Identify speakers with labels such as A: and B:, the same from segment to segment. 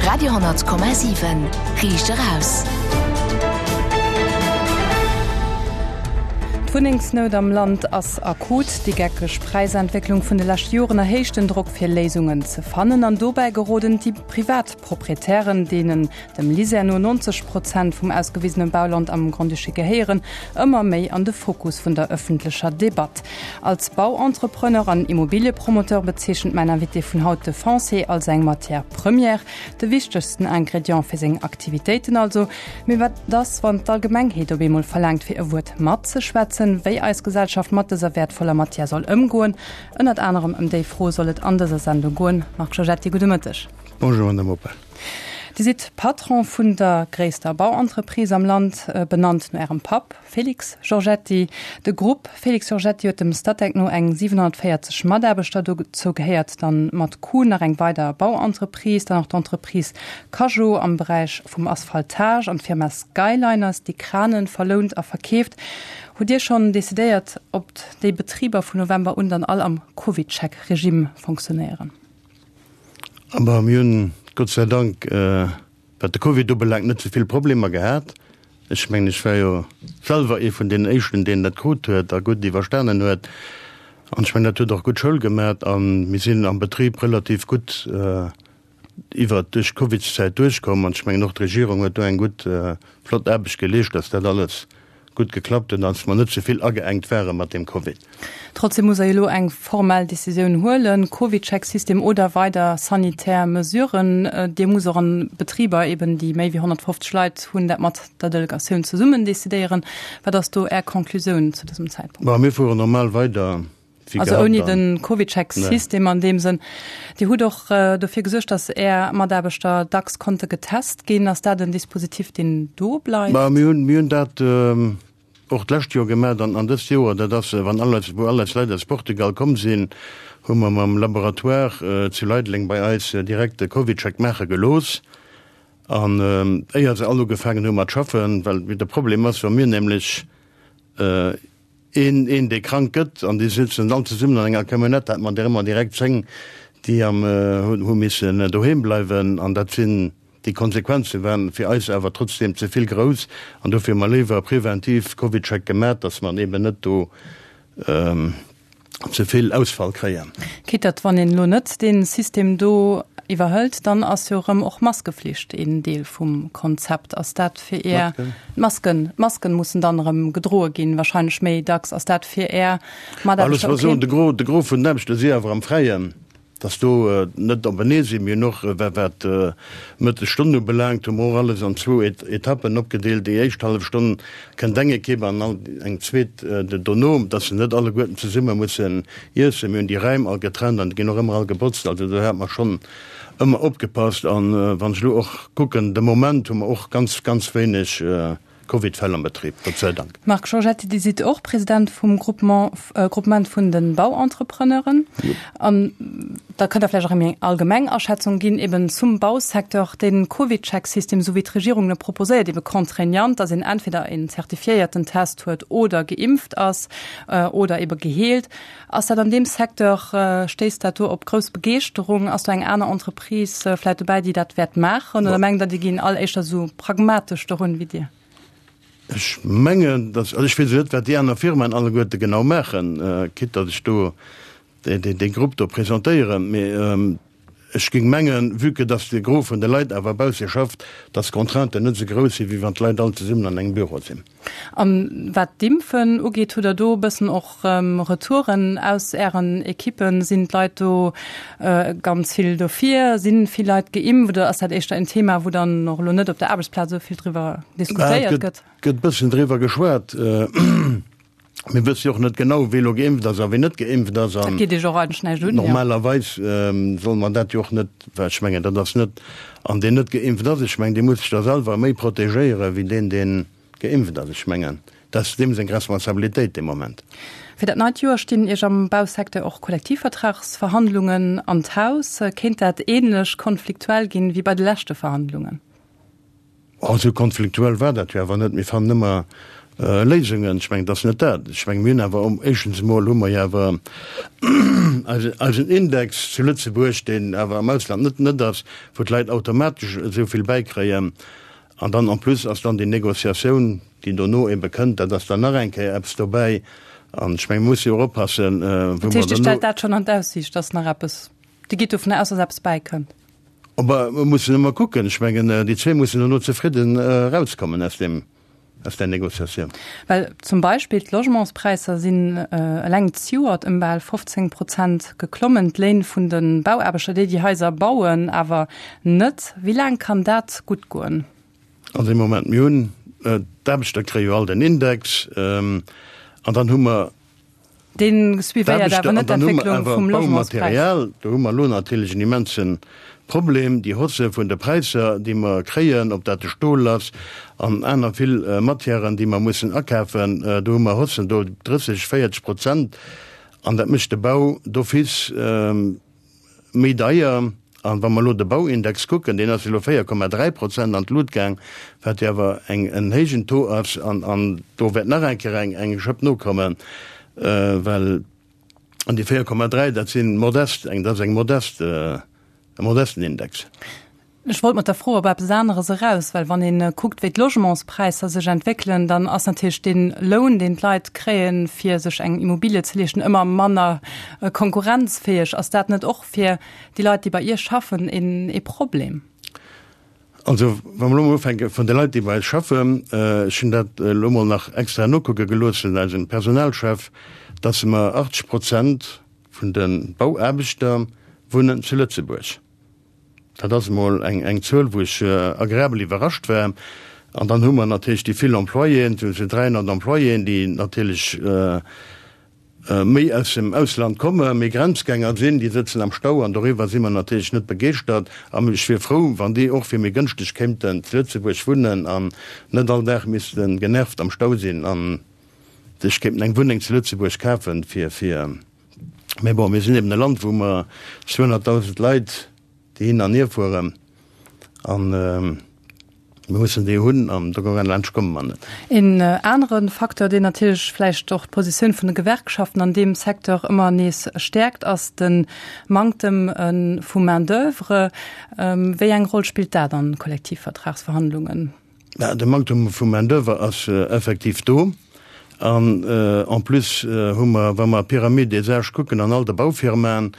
A: Radio,7 Riicht eraus.
B: D'Wunnengsnout am Land ass akut. Déi geckeg Präisentwécklung vun de leschte Joren erhéicht den Drock fir Léisungen ze fannen. An dobäi geroden déi privat Proprietären, deenen dem LISER no 90 Prozent vum ausgewisene Bauland am Grand-Duché gehéieren, ëmmer méi an de Fokus vun der ëffentlecher Debatt. Als Bauentrepreneur an Immobiliepromoteur bezeechent mäin Invité vun haut de Foncier als eng Matière première, de wichtegsten Ingrédient fir seng Aktivitéiten also. Mee wat ass, wann d'Allgemengheet op eemol verlaangt fir e Wuert matzeschwätzen, wéi eis Gesellschaft mat dëser wäertvoller Matière soll ëmgoen? Ënnert anerem ëm déi Fro soll et an dëser Sendung goen. Marc Giorgetti, gudde Mëtteg.
C: Bonjour, Madame Oppel.
B: Dir sidd Patron vun der gréisster Bauentreprise am Land, benannt no Ärem Papp Félix Giorgetti. De Grupp Félix Giorgetti huet dem Statec no eng 740 Mataarbechter. Dozou gehéiert dann mat Kuhn nach eng weider Bauentreprise, dann och d'Entreprise Cajo am Beräich vum Asphaltage an d'Firma Skyliners, déi Kranen verlount a verkeeft. Hutt Dir schonn decidéiert, ob déi Betriber vun November un dann all am CovidCheck-Regime fonctionnéieren?
C: Aber mir hunn Gott sei Dank, wat de Covid ubelaangt, net esou vill Problemer gehat. Ech mengen, ech war jo selwer ee vun deenen Éischten, deen dat krut huet a gutt iwwerstanen huet. An ech mengen, dat huet och gutt Schoul gemat a mir sinn am Betrib relativ gutt iwwert duerch d'Covidszäit duerchkomm. An ech mengen, och d'Regierung huet do eng gutt, flott Aarbecht geleescht, dass dat alles gutt geklappt huet an dass mer net ze vill ageengt ware mat deem Covid.
B: Trotzdem muss Der jo elo eng formell Decisioun huelen, CovidCheck-System oder weider sanitär Mesuren. Dir musst och an Betriber eben, déi méi wéi 150 Leit hunn, dat mat der Delegatioun zesummen decidéieren. Wat ass do Är Conclusioun zu dësem Zäitpunkt?
C: Bon, mir fueren normal weider.
B: Also ouni den CovidCheck-System an deem Sënn. Dir hutt och dofir gesuergt, datt Är Mataarbechter dacks konnte getest ginn. Ass dat en Dispositif, deen do bleift?
C: Ma mir hunn, mir hunn dat och d'lescht Joer gemaach an, an dëst Joer. Dat ass, wann all eis, wou all eis Leit aus Portugal komm sinn, hu mer mam Laboratoire zu Leideleng bei eis direkt de CovidCheck maache gelooss. An éier se all ugefaangen hu mat schaffen, well de Problem ass, wa mir nämlech, Een, een dee krank gëtt, an déi sëtzen all zesummen an enger Camionnette, hat mer der ëmmer direkt 10, déi am, hu missen doheem bleiwen. An dat sinn, déi Konsequenze waren fir eis awer trotzdeem ze vill grouss. An dofir hu mer léiwer preventiv CovidCheck gemat, datt mer eben net do ze vill Ausfall kréien.
B: Quitte datt, wann een elo net dee System do iwwerhëlt, dann ass jo erëm och Maskeflicht een Deel vum Konzept. Ass dat fir Är Masken? D'Masken mussen dann erëm gedroe ginn, wahrscheinlech méi dacks. Ass dat fir Är
C: Mataarbechter ok? Alles, de Gros, de Gros vun den Aarbechter si awer am Fräien. Dass do net openee sinn. Mir hunn och, wat d'Mëttesstonn ubelaangt, hu mer och alles an zwou Etappen opgedeelt. Déi éischt hallef Stonn kënnt eng Ekipp an eng zweet dono, dass se net alleguerten zesumme mussen iessen. Mir hunn déi Räim all getrennt an déi ginn och ëmmer all gebotzt. Also do hat mer schonn ëmmer opgepasst. An wann ech elo och kucken, de Moment hu mer och ganz, ganz wéineg Covid-Fäll am Betrib, Gott sei Dank.
B: Marc Giorgetti, Dir sidd och President vum Groupement, Groupement vun de Bauentrepreneuren. An da kënnt Der vläicht och eng allgemeng Aschätzung ginn eben zum Bausecteur. Den CovidCheck-System, esou wéi d'Regierung e proposéiert, ebe contraignant, dass een entweder een zertifiéierten Test huet oder geimpft ass oder ebe geheelt. Ass dat an deem Secteur, stéisst dat do op grouss Begeeschterung? Ass do eng aner Entreprise vläit dobäi, déi dat wäert maachen? Oder mengt Der, déi ginn all éischter esou pragmatesch dorun wéi Dir?
C: Ech mengen, dass, also ech weess elo net, wat déi aner Firmaen alleguerte genau maachen, quitte datt ech do dee Grupp do presentéieren, mee Ech géing mengen, vue que dass de Gros vun de Leit awer bausse schafft, dass d'Contrainten net esou grouss sinn, wéi wann d'Leit all zesummen an engem Büro sinn.
B: A wat d'Impfen ugeet, hutt Der do e bëssen och Retouren aus Ären Ekippen? Sinn d'Leit do ganz vill dofir? Si vill Leit geimpft oder ass dat éischter en Thema, wou dann och elo net op der Aarbechtsplaz esou vill driwwer diskutéiert gëtt?
C: Et gëtt e bëssen driwwer geschwat. Mir wësse jo och net genau, wee lo geimpft ass a wee net geimpft ass.
B: Dat geet Iech och eigentlech näischt un,
C: jo. Normalerweis solle mer dat jo och net, well ech mengen, dat ass net, an deen net geimpft ass, ech mengen, dee muss sech da selwer méi protegéiere wéi deen, deen geimpft ass. Ech mengen, dat ass deem seng Responsabilitéit dee Moment.
B: Fir dat neit Joer stinn Iech am Bausecteur och Kollektivvertragsverhandlungen an d'Haus. Kéint dat änlech konfliktuell ginn wéi bei de leschte Verhandlungen?
C: Oh, esou konfliktuell war dat jo awer net. Mir fannen ëmmer. Léisungen. Ech mengen, et ass net dat. Ech mengen, mir hunn awer, éischtens emol hu mer jo awer eisen Index zu Lëtzebuerg, deen awer am Ausland net net ass, wou d'Leit automatesch esou vill bäikréien. An dann en plus ass dann déi Négociatioun, déi dono ebe kënnt, dat ass dann nach eng Kéier eppes dobäi. An ech mengen, mir musse jo och oppassen, wou mer
B: Dat heescht, Dir stellt dat schonn an d'Aussiicht, dass nach eppes, Dir gitt dovunner aus, dass eppes bäikënnt?
C: Mä mir mussen ëmmer kucken. Ech mengen, déi zwee mussen dono zefridden erauskommen aus deem. aus där Négociatioun.
B: Well zum Beispill d'Logementspräisser sinn eleng zejoert ëm bal 15 Prozent geklommen, d'Léin vun de Bauaarbechter, déi déi Haiser bauen, awer net. Wéi laang kann dat gutt goen?
C: Also ee Moment, mir hunn, d'Aarbechter kréie jo all den Index an dann hu mer,
B: Dee suivéiert awer net d'Entwécklung vum Logementspräis.
C: Baumaterial, do hu mer elo natierlech en immense Problem, déi Hausse vun de Präisser, déi mer kréien, ob dat de Stol ass an aner vill Matièren, déi mer mussen akafen, do hu mer Haussen do 30, 40 Prozent an dat mécht de Bau d'office. Méi deier. An wa mer elo de Bauindex kucken, deen ass elo 4,3 Prozent an d'Lut gaang, wat jo awer eng en héijen Taux ass. An an do wäert nach eng Kéier eng eng Schëpp nokommen, well an déi 4,3, dat si modest, eng dat ass eng modest, e modesten Index.
B: Ech wollt mat der Fro op eppes aneres eraus, well wann ee kuckt, wéi d'Logementspräisser sech entwéckelen, dann ass natierlech dee Loun, deen d'Leit kréien, fir sech eng Immobilie ze leeschten, ëmmer manner konkurrenzfäeg. Ass dat net och fir déi Leit, déi bei Iech schaffen, ee Problem?
C: Also, wa mer elo mol ufänke vun de Leit, déi bei eis schaffen, ech hunn dat elo mol nach extra nokucke gelooss vun eisem Personalchef, dass mer 80 Prozent vun de Bauaarbechter wunnen zu Lëtzebuerg. Dat ass emol eng Zuel, wou ech agreabel iwwerrascht war. An dann hu mer natierlech déi vill Employéen, sou 300 Employéen, déi natierlech méi aus dem Ausland kommen, méi Grenzgänger sinn, déi sëtzen am Stau an doriwwer si mer natierlech net begeeschtert. A ech wier frou, wann déi och fir méi gënschteg kéinten zu Lëtzebuerg wunnen an net all Dag misste genervt am Stau sinn a sech kéinten eng Wunneng zu Lëtzebuerg kafen, fir fir. Mä bon, mir sinn eben e Land, wou mer 200.000 Leit, déi hin an hier fueren, an mir mussen déi hunn, an do laanscht komme mer net.
B: Een anere Facteur, deen natierlech vläicht och d'Positioun vun de Gewerkschaften an deem Secteur ëmmer nees stäerkt, ass de Manktem vu Main-d'oeuvre. Wéi eng Roll spillt dat an Kollektivvertragsverhandlungen?
C: De Manktum vu Main-d'oeuvre ass effektiv do. An en plus hu mer, wa mer d'Pyramide des âges kucken an all de Baufirmaen,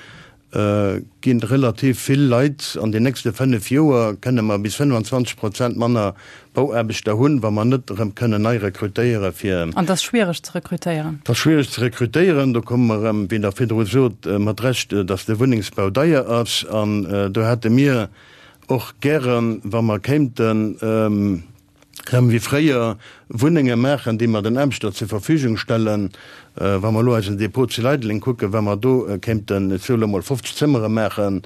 C: gi relativ vill Leit, an den nächste 5 Joer kënne mer bis 25 Prozent manner Bauaarbechter hunn, wa mer net erëm kënnen nei rekrutéiere fir.
B: An et ass schwiereg ze rekrutéieren.
C: Et ass schwiereg ze rekrutéieren. Do komme mer erëm, wéi Der virdru sot, mat Recht, datt de Wunnengsbau deier ass. An do hate mir Och gären, wa mer kéinten erëm wéi fréier Wunnenge maachen, déi mer den Aarbechter zur Verfügung stellen. Wa mer elo eisen Depot zu Leideleng kucken, wa mer do kéinten, ech soe lo mol, 50 Zëmmere maachen,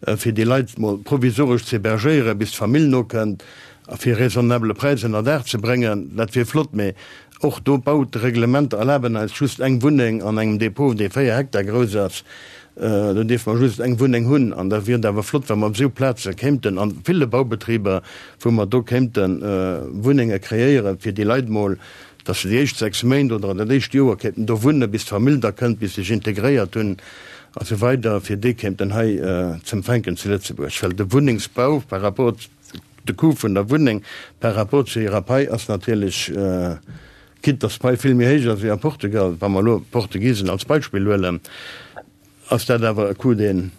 C: fir déi Leit mol provisoresch ze hébergéieren, bis d'Famill nokënnt, a fir raisonnabele Präis ënner Daach ze bréngen, dat wier flott. Mee och do, d'Baureglementer erlaben eis just eng Wunneng an engem Depot, dee 4 Hektar grouss ass. Do dierfe mer just eng Wunneng hunn. An da wier et awer flott, wa mer op esou Plaze kéimten, a ville Baubetriber, wou mer do kéimte Wunnenge kreéieren, fir déi Leit mol, datt se déi éischt 6 Méint oder dat éischt Joer kéinten do wunnen, bis d'Famill da kënnt, bis se sech integréiert hunn a sou weider, fir déi kéimten hei z'empfänken zu Lëtzebuerg. Well de Wunnengsbau par rapport, de Coût vun der Wunneng par rapport zu hirer Pai ass natierlech, Quitte dass d'Pai vill méi héich ass wéi a Portugal, wa mer elo d'Portugisen als Beispill huelen, ass dat awer e Coût, deen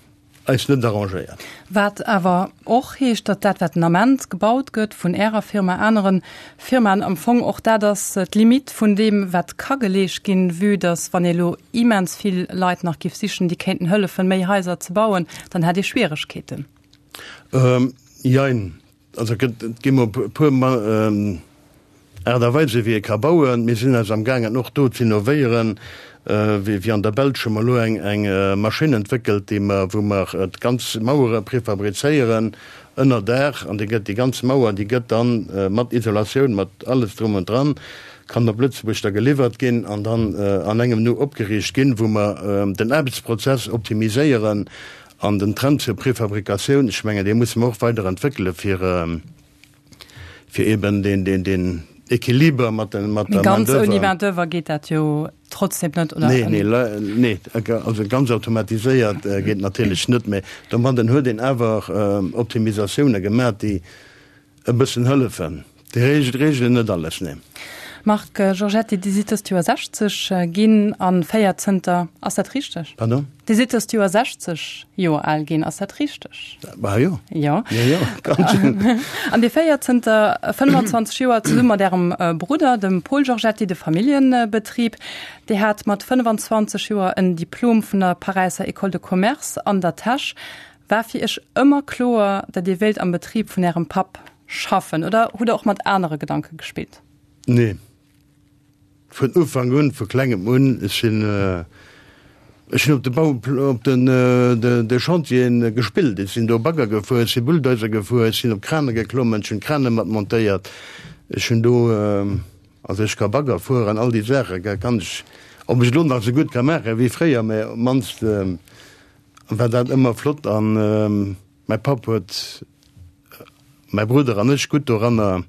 C: eis net arrangéiert.
B: Wat awer och heescht, datt dat, wat den Ament gebaut gëtt vun Ärer Firma, anere Firmaen, am Fong och dat ass, d'Limite vun deem, wat ka geleescht ginn, vue datt, wann ee elo immens vill Leit nach géif sichen, déi kéinten hëllefen, méi Haiser ze bauen, dann hätt ee Schwieregkeeten.
C: Jein. Also et gëtt, et gi mol e puer Aart a Weise wéi ee ka bauen. Mir sinn eis amgaangen och do z'innovéieren, wéi an der Belsch hu mer elo eng eng Maschinn entwéckelt, déi mer, wou mer d'ganz Mauere prefabrizéieren ënner Daach an déi gëtt, déi ganz Mauer, déi gëtt dann mat Isolatioun, mat alles drum und dran, kann op Lëtzebuerg da geliwwert ginn an dann an engem Nu opgeriicht ginn, wou mer den Aarbechtsprozess optimiséieren An den Trend zur Prefabrikatioun, ech mengen, dee musse mer och weider entwéckele fir, fir eben deen, deen, deen. Equiliber mat der Main
B: d'oeuvre. Mee ganz ouni Main d'oeuvre geet dat jo trotzdem net,
C: oder? Nee, nee, nee, also ganz automatiséiert geet natierlech net, mee domadden huet een awer Optimisatioune gemaach, déi e bëssen hëllefen. Déi regelen net alles, nee.
B: Marc Giorgetti, Dir sidd dëst Joer 60 ginn a féiert zënter, ass dat richteg?
C: Pardon?
B: Dir sidd dëst Joer 60 Joer al ginn, ass dat richteg?
C: Bah jo.
B: Jo.
C: Jo, jo, ganz schön.
B: An Dir féiert zënter 25 Joer zesumme mat Ärem Brudder, dem Paul Giorgetti, de Familljebetrib. Dir hat mat 25 Joer en Diplom vun der Paräisser École de Commerce an der Täsch. War fir Iech ëmmer kloer, datt Dir wéilt am Betrib vun Ärem Papp schaffen oder hutt Der och mat anere Gedanke gespillt?
C: Nee. Vun Ufank un, vu klengem un. Ech sinn, ech hunn op de Bau, op den, de Chantieren gespillt. Ech sinn do Bagger gefuer, ech si Bulldozer gefuer, ech sinn op Krane geklommen, ech hunn Krane mat montéiert. Ech hunn do, also ech ka Bagger fueren, all déi Saache kann ech, ob ech elo nach esou gutt ka maache wéi fréier, mä op d'mannst war dat ëmmer flott an mäi Papp huet mäi Brudder an ech gutt doranner,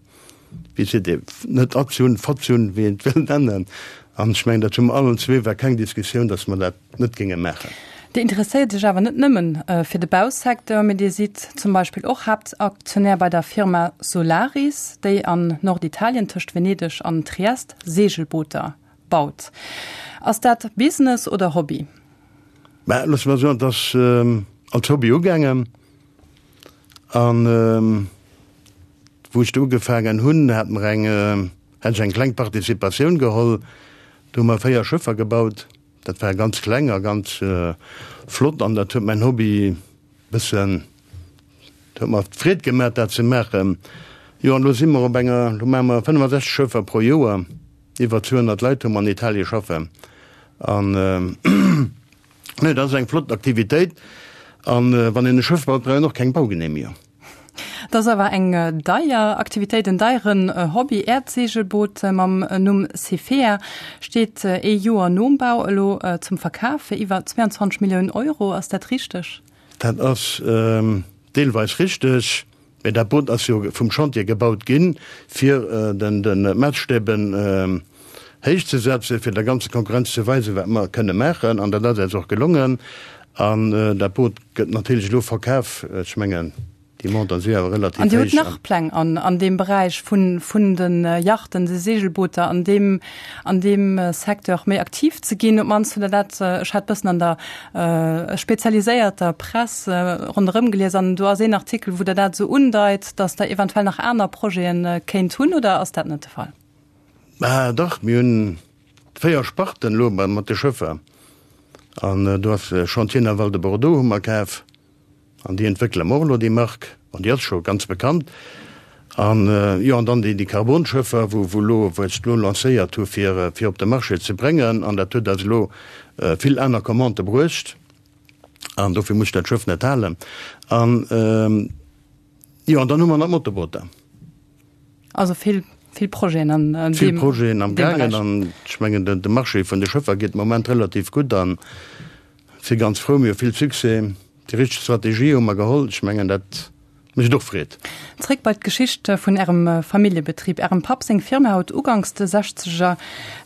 C: wéi seet ee, net erzunn, verzunn, wéi een et wëll nennen. An ech mengen, dat hu mer allen zwee, war keng Diskussioun, datt mer dat net géinge maachen.
B: Dir interesséiert Iech awer net nëmmen fir de Bausecteur, mee Dir sidd zum Beispill och Haaptaktionär bei der Firma Solaris, déi an Norditalien tëscht Venedeg an Triest Seegelbooter baut. Ass dat Business oder Hobby?
C: Mä loosse mer soen, et ass als Hobby ugaangen. An wou ech do ugefaangen hunn, hat mer eng, hat ech eng kleng Participatioun geholl. Do hu mer 4 Schëffer gebaut. Dat war ganz kleng a ganz flott an dat huet mäin Hobby bëssen, dat huet mer Freed gemaach, dat ze maachen. Jo, an elo si mer op enger, elo maache mer 65 Schëffer pro Joer. Iwwer 200 Leit hu mer an Italie schaffen. An nee, dat ass eng flott Aktivitéit. An wann een e Schëff baut, brauch een och keng Baugenehmigung.
B: Dat ass awer eng deier Aktivitéit, en deieren Hobby. Äert Seegelboot mam Numm Cefea steet ee Joer nom Bau elo zum Verkaf fir iwwer 22 Milliounen Euro. Ass dat richteg?
C: Dat ass deelweis richteg. Mee dat Boot ass jo vum Chantier gebaut ginn, fir de Maasstäben héich ze setzen, fir der ganzer Konkurrenz ze weisen, wat mer kënne maachen. An dat ass eis och gelongen. An dat Boot gëtt natierlech elo verkaf. Ech mengen, déi Montanten si awer relativ
B: héich. An Dir hutt nach Pläng an deem Beräich vun de Yachten, de Seegelbooter, an deem an deem Secteur méi aktiv ze ginn? Op d'mannst hutt Der dat, ech hat bëssen an der spezialiséierter Press ronderëm gelies an do ass een Artikel, wou Der dat esou undeit, datt Der eventuell nach aner Projete kéint hunn, oder ass dat net de Fall?
C: Bah dach, mir hunn 4 Sparten elo mat de Schëffer an do ass Chantier Naval de Bordeaux hu mer kaf an déi entwéckele mer och elo déi Mark an déi ass scho ganz bekannt. An jo, an dann déi Carbonschëffer, wou wou elo, wou ech elo lancéiert hu fir fir op de Marché ze bréngen an dat huet eis elo vill aner Commandë bruecht an dofir muss ech dat Schëff net halen. An jo, an dann hu mer nach d'Motorbooter.
B: Also vill, vill Projeten an
C: deem Vill Projeten am gaangen an ech mengen de Marché vun de Schëffer geet de Moment relativ gutt an si ganz frou, mir hu vill Succès. Déi richteg Strategie hu mer geholl. Ech mengen dat mécht och Freed.
B: Zréck bei d'Geschicht vun Ärem Familljebetrib. Ärem Papp seng Firma huet uganks de Sechzeger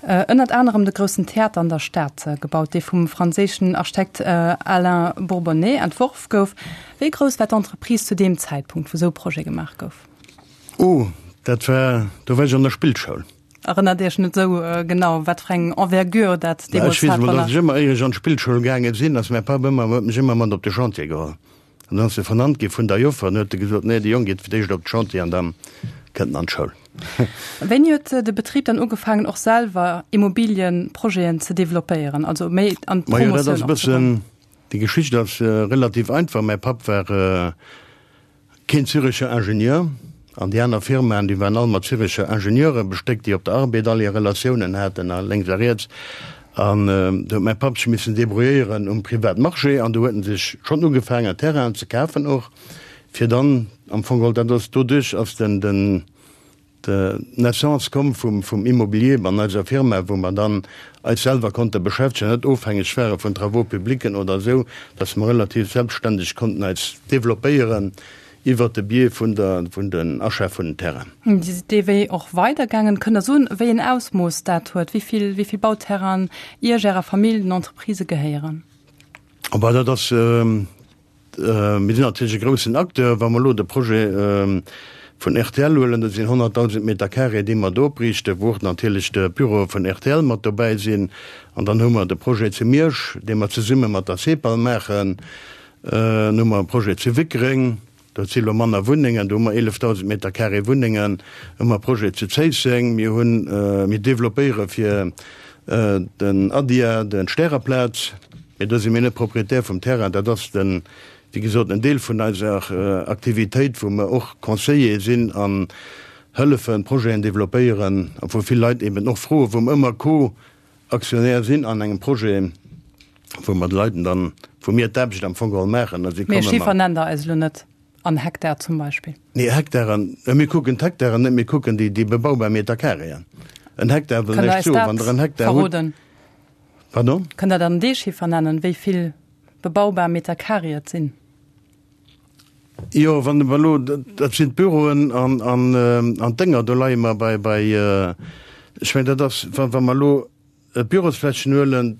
B: ënnert anerem de groussen Theater an der Stad gebaut, dee vum franséischen Architekt Alain Bourbonnais entworf gouf. Wéi grouss war d'Entreprise zu deem Zäitpunkt, wou esou e Projet gemaach gouf?
C: Oh, dat war, do war ech an der Spillschoul.
B: Erënnert Iech net esou genau, wat fir eng Envergure dat
C: deemools hat? Ech weess emol, datt ech ëmmer, éier ech an d'Spillschoul gaange sinn, ass mäi Papp ëmmer, huet mech ëmmer mat op de Chantier geholl. An dann ass e vernannt gi vun der Joffer an huet e gesot, Nee, de Jong geet fir d'éischt op de Chantier an da kënnt en an d'Schoul.
B: Wéini huet de Betrib dann ugefaangen, och selwer Immobiliëprojeten ze developpéieren, also méi an
C: d'Promotioun och ze goen? Majo, dat ass e bëssen, déi Geschicht ass relativ einfach. Mäi Papp war Keen Zürecher Ingenieur, an déi aner Firmaen, déi waren all mat Zürecher Ingenieure bestéckt, déi op der Arbed all hir Relatiounen haten a lénks a riets. An do huet mäi Papp sech missen débrouilléieren um Privatmarché an do huet en sech schonn ugefaangen Terrainen ze kafen och, fir dann am Fong geholl, dat ass doduerch ass den, den, D'Naissance komm vum Immobilier an eiser Firma, wou mer dann eis selwer konnte beschäftegen, net ofhängeg ware vun Travaux publicen oder esou, dass mer relativ selbstständeg konnten eis développéieren. Iwwert de Biais vun der, vun den Achat vun den Terrainen.
B: Dee Wee och weidergaangen. Kënnt Der soen, wéi en Ausmooss dat huet, wéi vill, wéi vill Bauterrainen Iech, Ärer Famill, den Entreprisë gehéieren?
C: Oh bah, dat ass, mir sinn natierlech e groussen Acteur. Wa mer elo de Projet vun rtl huelen, dat sinn 100.000 Meter carré, déi mer do opriichten, wou och natierlech de Büroe vun rtl mat dobäi sinn. An dann hu mer de Projet zu Miersch, dee mer zesumme mat der CEPAL maachen. Dann hu mer e Projet zu Wickreng, dat si lo manner Wunnengen, do hu mer 11.000 Meter carré Wunnengen. Hu mer e Projet zu Zéisseng, mir hunn, mir developpéiere fir den ADIA de Stäreplaz, mee do si mir net Proprietär vum Terrain, dat ass den, wéi gesot, en Deel vun eiser Aktivitéit, wou mer och Conseiller sinn an hëllefen, Projeten developpéieren a wou vill Leit eben och froen, wou mer ëmmer Co-Actionnaire sinn an engem Projet. Wou mer de Leiten dann, wou mir d'Aarbecht am Fong geholl maachen
B: a si komme mat. Mee Chiffer nennt Der eis elo net, an Hektar zum Beispill?
C: Nee, Hektaren, mir kucken d'Hektaren net, mir kucken déi, déi bebaubar Meterkareeën. En Hektar wëll
B: näischt soen, wann Der en Hektar hutt.
C: Pardon?
B: Kënnt Der dann dee Chiffer nennen, wéi vill bebaubar Meterkaree et sinn?
C: Jo, wann mer elo, dat sinn d'Büroen an, an, an d'Dénger, do leie mer bei, bei, ech mengen, dat ass, wa, wa mer elo D'Bürosflächen huelen,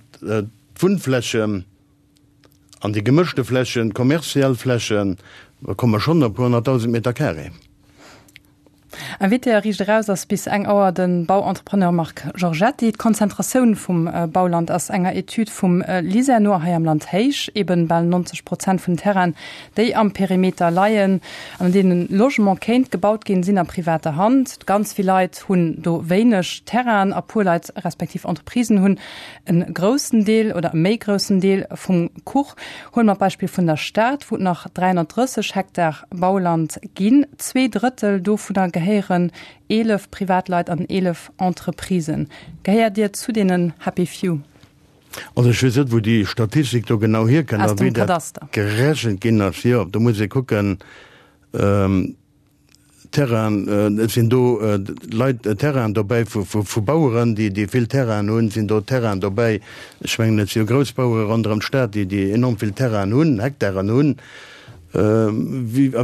C: d'Wunnflächen an déi gemëschte Flächen, d'kommerziell Flächen, da komme mer schonn op e puer 100.000 Meter carré.
B: Invité a Riicht Eraus ass bis eng Auer de Bauentrepreneur Marc Giorgetti. D'Konzentratioun vum Bauland ass enger Etüd vum LISER no hei am Land héich. Eben bal 90 Prozent vun Terrainen, déi am Perimeter leien an an deenen Logement kéint gebaut ginn, sinn a privater Hand. Ganz vill Leit hunn do wéineg Terrainen a puer Leit respektiv Entreprisen hunn e groussen Deel oder e méi groussen Deel vum Kuch. Huele mer d'Beispill vun der Stad, wou et nach 330 Hektar Bauland ginn. Zweedrëttel dovunner gehéieren 11 Privatleit an 11 Entreprisen. Gehéiert Dir zu deenen Happy Few?
C: Also ech weess net, wou déi Statistik do genau hierkënnt a wéi dat gerechent ginn ass. Jo, do muss ee kucken, Terrainen, et sinn do Leit, Terrainen dobäi vu Baueren, déi déi vill Terrainen hunn, sinn do Terrainen dobäi, ech mengen et si jo grouss Bauere ronderëm d'Stad, déi déi enorm vill Terrainen hunn, Hektaren hunn. A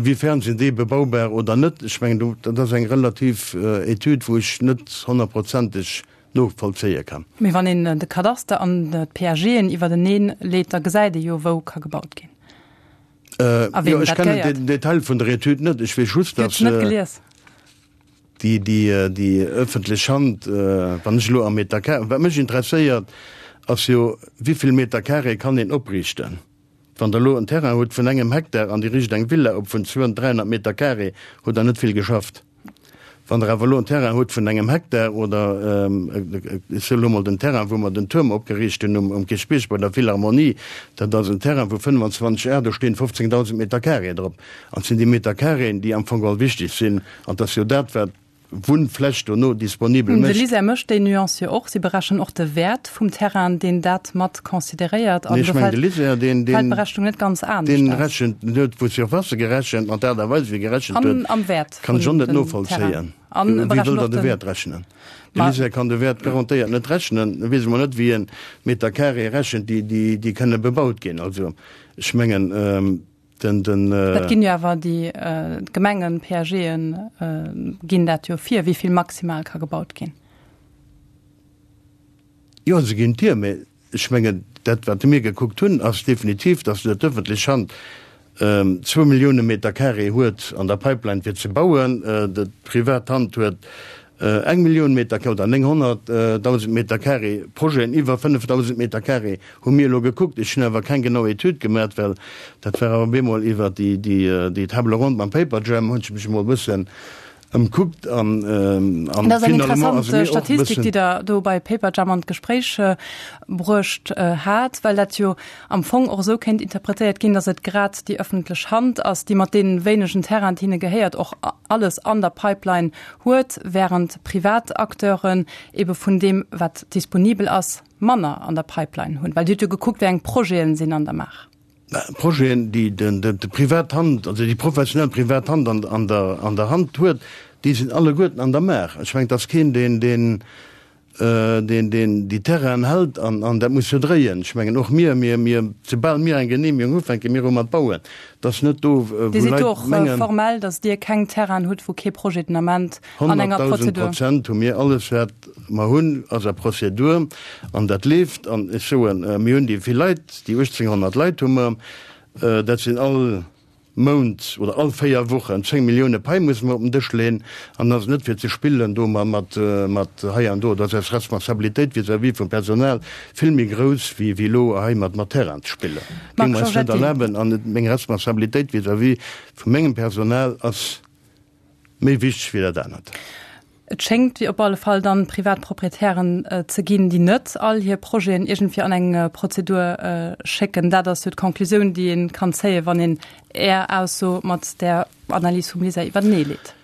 C: wéi fern sinn déi bebaubar oder net? Ech mengen do, dat ass eng relativ Etüd, wou ech net honnertprozenteg novollzéie kann.
B: Mee wann een de Kadaster an d'PAGen iwwerteneen leet, da gesäit ee jo, wou ka gebaut ginn
C: a weem dat gehéiert. Ech kennen den Detail vun der Etüd net. Ech weess just, datt déi ëffentlech Hand, wann ech elo am Meter carré, wat mech interesséiert, ass jo, wéi vill Meter carré kann een opriichten? Wann Der elo en Terrain hutt vun engem Hektar an Dir riicht eng Villa op vun 200, 300 Meter carré, hutt Der net vill geschafft. Wann Der awer elo en Terrain hutt vun engem Hektar oder, ech soe elo mol den Terrain, wou mer den Tuerm opgeriicht hunn um Kierchbierg bei der Philharmonie, dat ass en Terrain vu 25 Ar, do stinn 15.000 Meter carré drop. An et sinn déi Meter carréen, déi am Fong geholl wichteg sinn. An et ass jo dat, wat Wunnfläch dono disponibel
B: mécht. De LISER mécht déi Nuance jo och. Si berechnen och de Wäert vum Terrain, deen dat mat consideréiert.
C: An do fält
B: d'Berechnung net ganz anescht
C: aus. Deen rechent, deen huet vu Surfacë gerechent an d'Aart a Weis, wéi e gerechent huet,
B: Am Wäert
C: kann ech och net novollzéien. Wéi wëll Der de Wäert rechnen? De LISER kann de Wäert garantéiert net rechnen. E weess emol net, wéi en Meter carré rechent, déi kënne bebaut ginn. Also ech mengen,
B: Den, den, Dat ginn jo awer déi d'Gemengen, PAGen ginn dat jo vir, wéi vill maximal ka gebaut ginn.
C: Jo, se ginn et vir, mä ech mengen, dat wat mir gekuckt hunn, ass definitiv, datt d'ëffentlech Hand zwou Millioune Meter carré huet an der Pipeline fir ze bauen, d'privat Hand huet Eng Millioun Meter carré oder 900.000 Meter carré, Projeten iwwer 5.000 Meter carré hu mir elo gekuckt. Ech hunn awer keng genau Etüd gemaat, well dat war awer op eemol iwwer déi Table ronde mam Paperjam hunn ech mech emol e bëssen ëmkuckt an
B: Dat ass eng finalement interessant ass mir och e Statistik, bëssen. déi Der do bei Paperjam an d'Gespréich bruecht hat, well dat jo am Fong och esou kéint interpretéiert ginn, datt et grad déi ëffentlech Hand ass, déi mat deene wéinegen Terrainen, déi hinne gehéiert, och alles an der Pipeline huet, während privat Acteuren ebe vun deem, wat disponibel ass, manner an der Pipeline hunn. Well Dir hutt jo gekuckt, wéi eng Projeten sinn an der Maach.
C: Projeten, déi déi privat Hand, also déi professionell privat Hand an der Hand huet, déi sinn alleguerten an der Maach. Ech mengen, et ass keen, deen, deen. Deen, deen déi Terrainen hält an, an dat muss jo dréien. Ech mengen, och mir, mir, mir, soubal mir eng Genehmigung hu fänke mir u mat bauen. Et ass net do, wou
B: Dir sidd
C: Leit
B: do och
C: mengen.
B: formell, datt Dir keng Terrainen hutt, wou kee Projet den Ament an enger
C: 100.000
B: Prozedur.
C: Prozent hu mir alles, wat mer hunn, ass a Prozedur an dat leeft. An ech soen, mir hunn déi vill Leit, déi 1.800 Leit hu mer, dat sinn all Mount oder all 4 Wochen 10 Millioune Pai musse mer op den Dësch leeën an dat ass net fir ze spillen do mat mat hei an do. Dat ass eis Responsabilitéit vis-à-vis vum Personal vill méi grouss wéi wéi elo hei mat mat Terrain ze spillen.
B: Marc
C: Géinge mer eis net
B: Giorgetti.
C: erlaben an meng Responsabilitéit vis-à-vis vu mengem Personal ass méi wichteg wéi dat anert.
B: Et schéngt wéi op alle Fall dann privat Proprietären ze ginn, déi net all hir Projeten iergendwéi an eng Prozedur schécken. Dat ass jo d'Conclusioun, déi ee kann zéien, wann een Är Ausso mat där Analys vum LISER iwwertenee leet.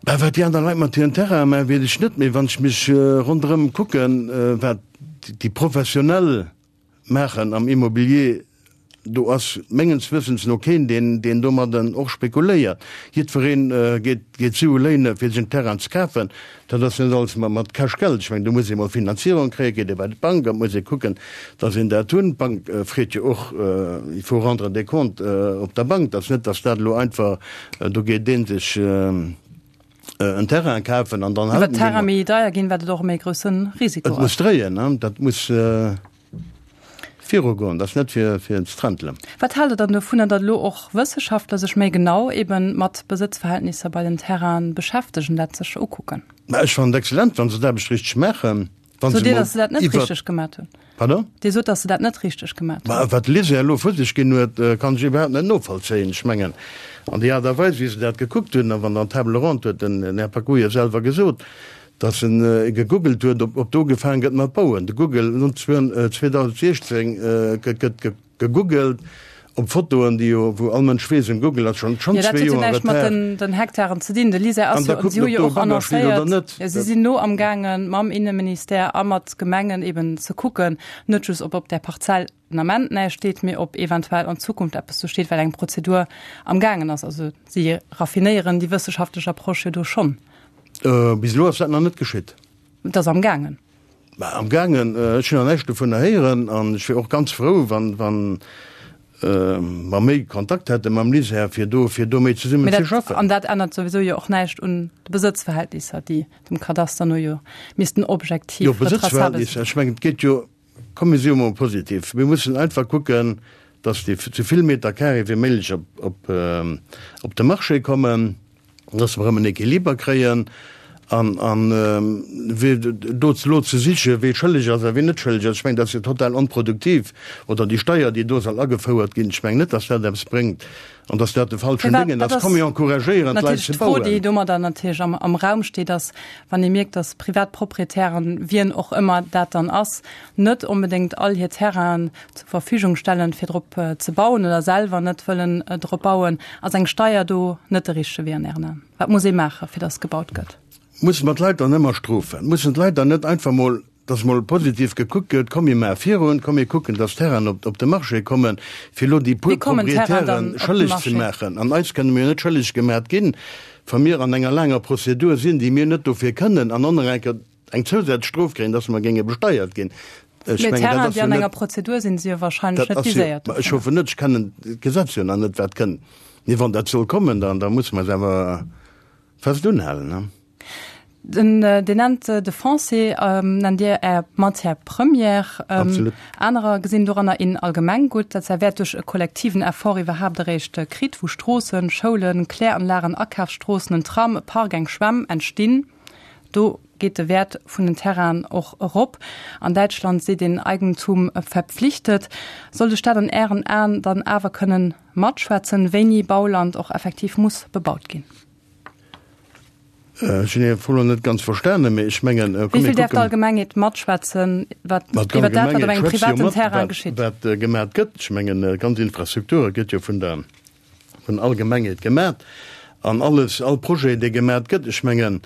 C: Bah, wat déi aner Leit mat hiren Terrainen maachen, weess ech net, mee wann ech mech ronderëm kucken, wat déi Professionell maachen am Immobilier, do ass mengens Wëssens no keen, deen, deen domadden och spekuléiert. Jiddweree geet, geet Sue léine fir sech en Terrain ze kafen. Dat ass net alles mat, mat Cash Geld. Ech mengen, do muss ee mol Finanzierung kréien, geet ee bei d'Bank an et muss ee kucken, dass een dat hunn. D'Bank freet jo och, il faut rendre des comptes op der Bank. Dat ass net, dass dat elo einfach, do geet ee sech en Terrain kafen an dann
B: Wat
C: hält en dee
B: Terrain
C: mat.
B: méi deier ginn, wat et och e méi grousse Risiko
C: Et muss
B: ass.
C: dréien, ne? Dat muss. Virugoen, dat ass net fir fir ze trentelen.
B: Wat haalt Der dann dovunner, datt elo och Wësseschaftler sech méi genau eben mat Besëtzverhältnisser bei den Terrainen beschäftegen, dat sech ukucken?
C: Mä ech fannen et excellent, wa se d'Aarbecht richteg maachen, wa
B: Sot
C: se
B: Dir,
C: mol
B: datt se dat net
C: iwwer.
B: richteg gemat hunn?
C: Pardon?
B: Dir sot, datt se dat net richteg gemat hunn.
C: Mä wat de LISER elo vu sech ginn huet, kann ech iwwerhaapt net novollzéien. Ech mengen, an déi Aart a Weis, wéi se dat gekuckt hunn, a wann dann d'Table ronde huet den Här Pacouille selwer gesot, Dass en gegoogelt huet, ob do ugefaange gëtt mat bauen. De Google, 2016 gëtt gegoogelt op Fotoen, déi jo, wou all Mënsch weess, um Google ass schonn
B: schonn
C: zwee
B: Jo, dat huet jo
C: Joer
B: näischt mat
C: Retard.
B: den Hektaren ze dinn. De LISER
C: An
B: ass
C: da
B: jo,
C: kucken,
B: si hu
C: ob
B: jo
C: do e
B: och
C: Bagger steet oder
B: annoncéiert,
C: net.
B: jo, si sinn no am gaangen, mam Inneministère a mat Gemengen eben ze kucken, net just ob op där Parzell den Ament näischt steet, mee ob eventuell an Zukunft eppes do steet, well eng Prozedur am gaangen ass. Also si raffinéieren déi wësseschaftlech Approche jo do schonn.
C: Bis elo ass dat nach net geschitt.
B: Et ass am gaangen.
C: Mä am gaangen, ech hunn nach näischt dovunner héieren an ech wier och ganz frou, wann, wann mer méi Kontakt hätte mam LISER, fir do, fir do méi zesummen
B: Mee
C: ze
B: dat,
C: schaffen.
B: an dat ännert souwisou jo och näischt un de Besëtzverhältnisser, déi dem Kadaster no jo missten objektiv
C: Jo,
B: retraçabel sinn.
C: Besëtzverhältnisser, ech mengen, et geet jo, komm mir si jo mol positiv, mir mussen einfach kucken, dass déi esou vill Meter carré wéi méiglech op, op, op de Marché kommen. dass mer erëm en Equiliber kréien an, an wee do elo ze sichen, wee schëlleg ass a ween net schëlleg ass, ech mengen, dat ass jo total onproduktiv. Oder déi Steier, déi do soll agefouert ginn, ech mengen net, dass dat eppes bréngt an dass dat de falschen
B: Firwat?
C: Déngen
B: Dat
C: ass.
B: ass
C: Komm, mir encouragéieren d'Leit
B: natierlech
C: ze
B: d'Fro, déi
C: bauen.
B: domadder natierlech am, am Raum steet, ass, wann ee mierkt, dass privat Proprietären, wien och ëmmer dat dann ass, net onbedéngt all hir Terrainen zur Verfügung stellen, fir drop ze bauen oder selwer net wëllen drop bauen, ass eng Steier do net de richtege Wee an Ären Aen? Wat muss ee maachen, fir dass gebaut gëtt?
C: Mussen mer d'Leit dann ëmmer strofen? Mussen d'Leit dann net einfach mol, dass mol positiv gekuckt gëtt, komm mir maache virun, komm mir kucken, dass Terrainen op op de Marché kommen, fir elo déi puer
B: Wéi kommen d'Terrainen dann
C: Proprietären
B: op de
C: schëlleg ze
B: Marché?
C: maachen? An eis kënne mir jo net schëlleg gemat ginn, wa mir an enger laanger Prozedur sinn, déi mir net dofir kënnen an onerenker eng zousätzlech Strof kréien, dass mer géinge besteiert ginn.
B: Ech mengen, dat ass jo net. Mee Terrainen, déi an enger Prozedur sinn, si jo wahrscheinlech net viséiert
C: dovunner. Ech hoffen net, ech kennen d'Gesetz jo nach net, wat kënnt. Mee wann dat soll kommen, dann da musse mer eis awer fest unhalen.
B: Den, Dir nennt de Foncier, nennt Dir Är Matière première.
C: Absolut.
B: Anerer gesinn doranner een Allgemenggutt, dat säi Wäert duerch e kollektiven Effort iwwerhaapt eréischt kritt, wou Stroossen, Schoulen, Kläranlagen, Akafsstroossen, en Tram, e Park, eng Schwämm entstinn. Do geet de Wäert vun den Terrainen och erop. An Däitschland seet een Eigentum verpflichtet. Soll de Staat an Ären Aen dann awer kënnen matschwätzen, wéini Bauland och effektiv muss bebaut ginn?
C: Ech hunn Är Fro elo net ganz verstanen, mee ech mengen,
B: komm mir kucken. Wéi vill däerf d'Allgemengheet matschwätzen iwwer dat, wat op engem privaten Terrain geschitt?
C: Wat gemat gëtt? Ech mengen, ganz Infrastrukture gëtt jo vun der vun Allgemengheet gemat an alles, all Projet, dee gemat gëtt, ech mengen,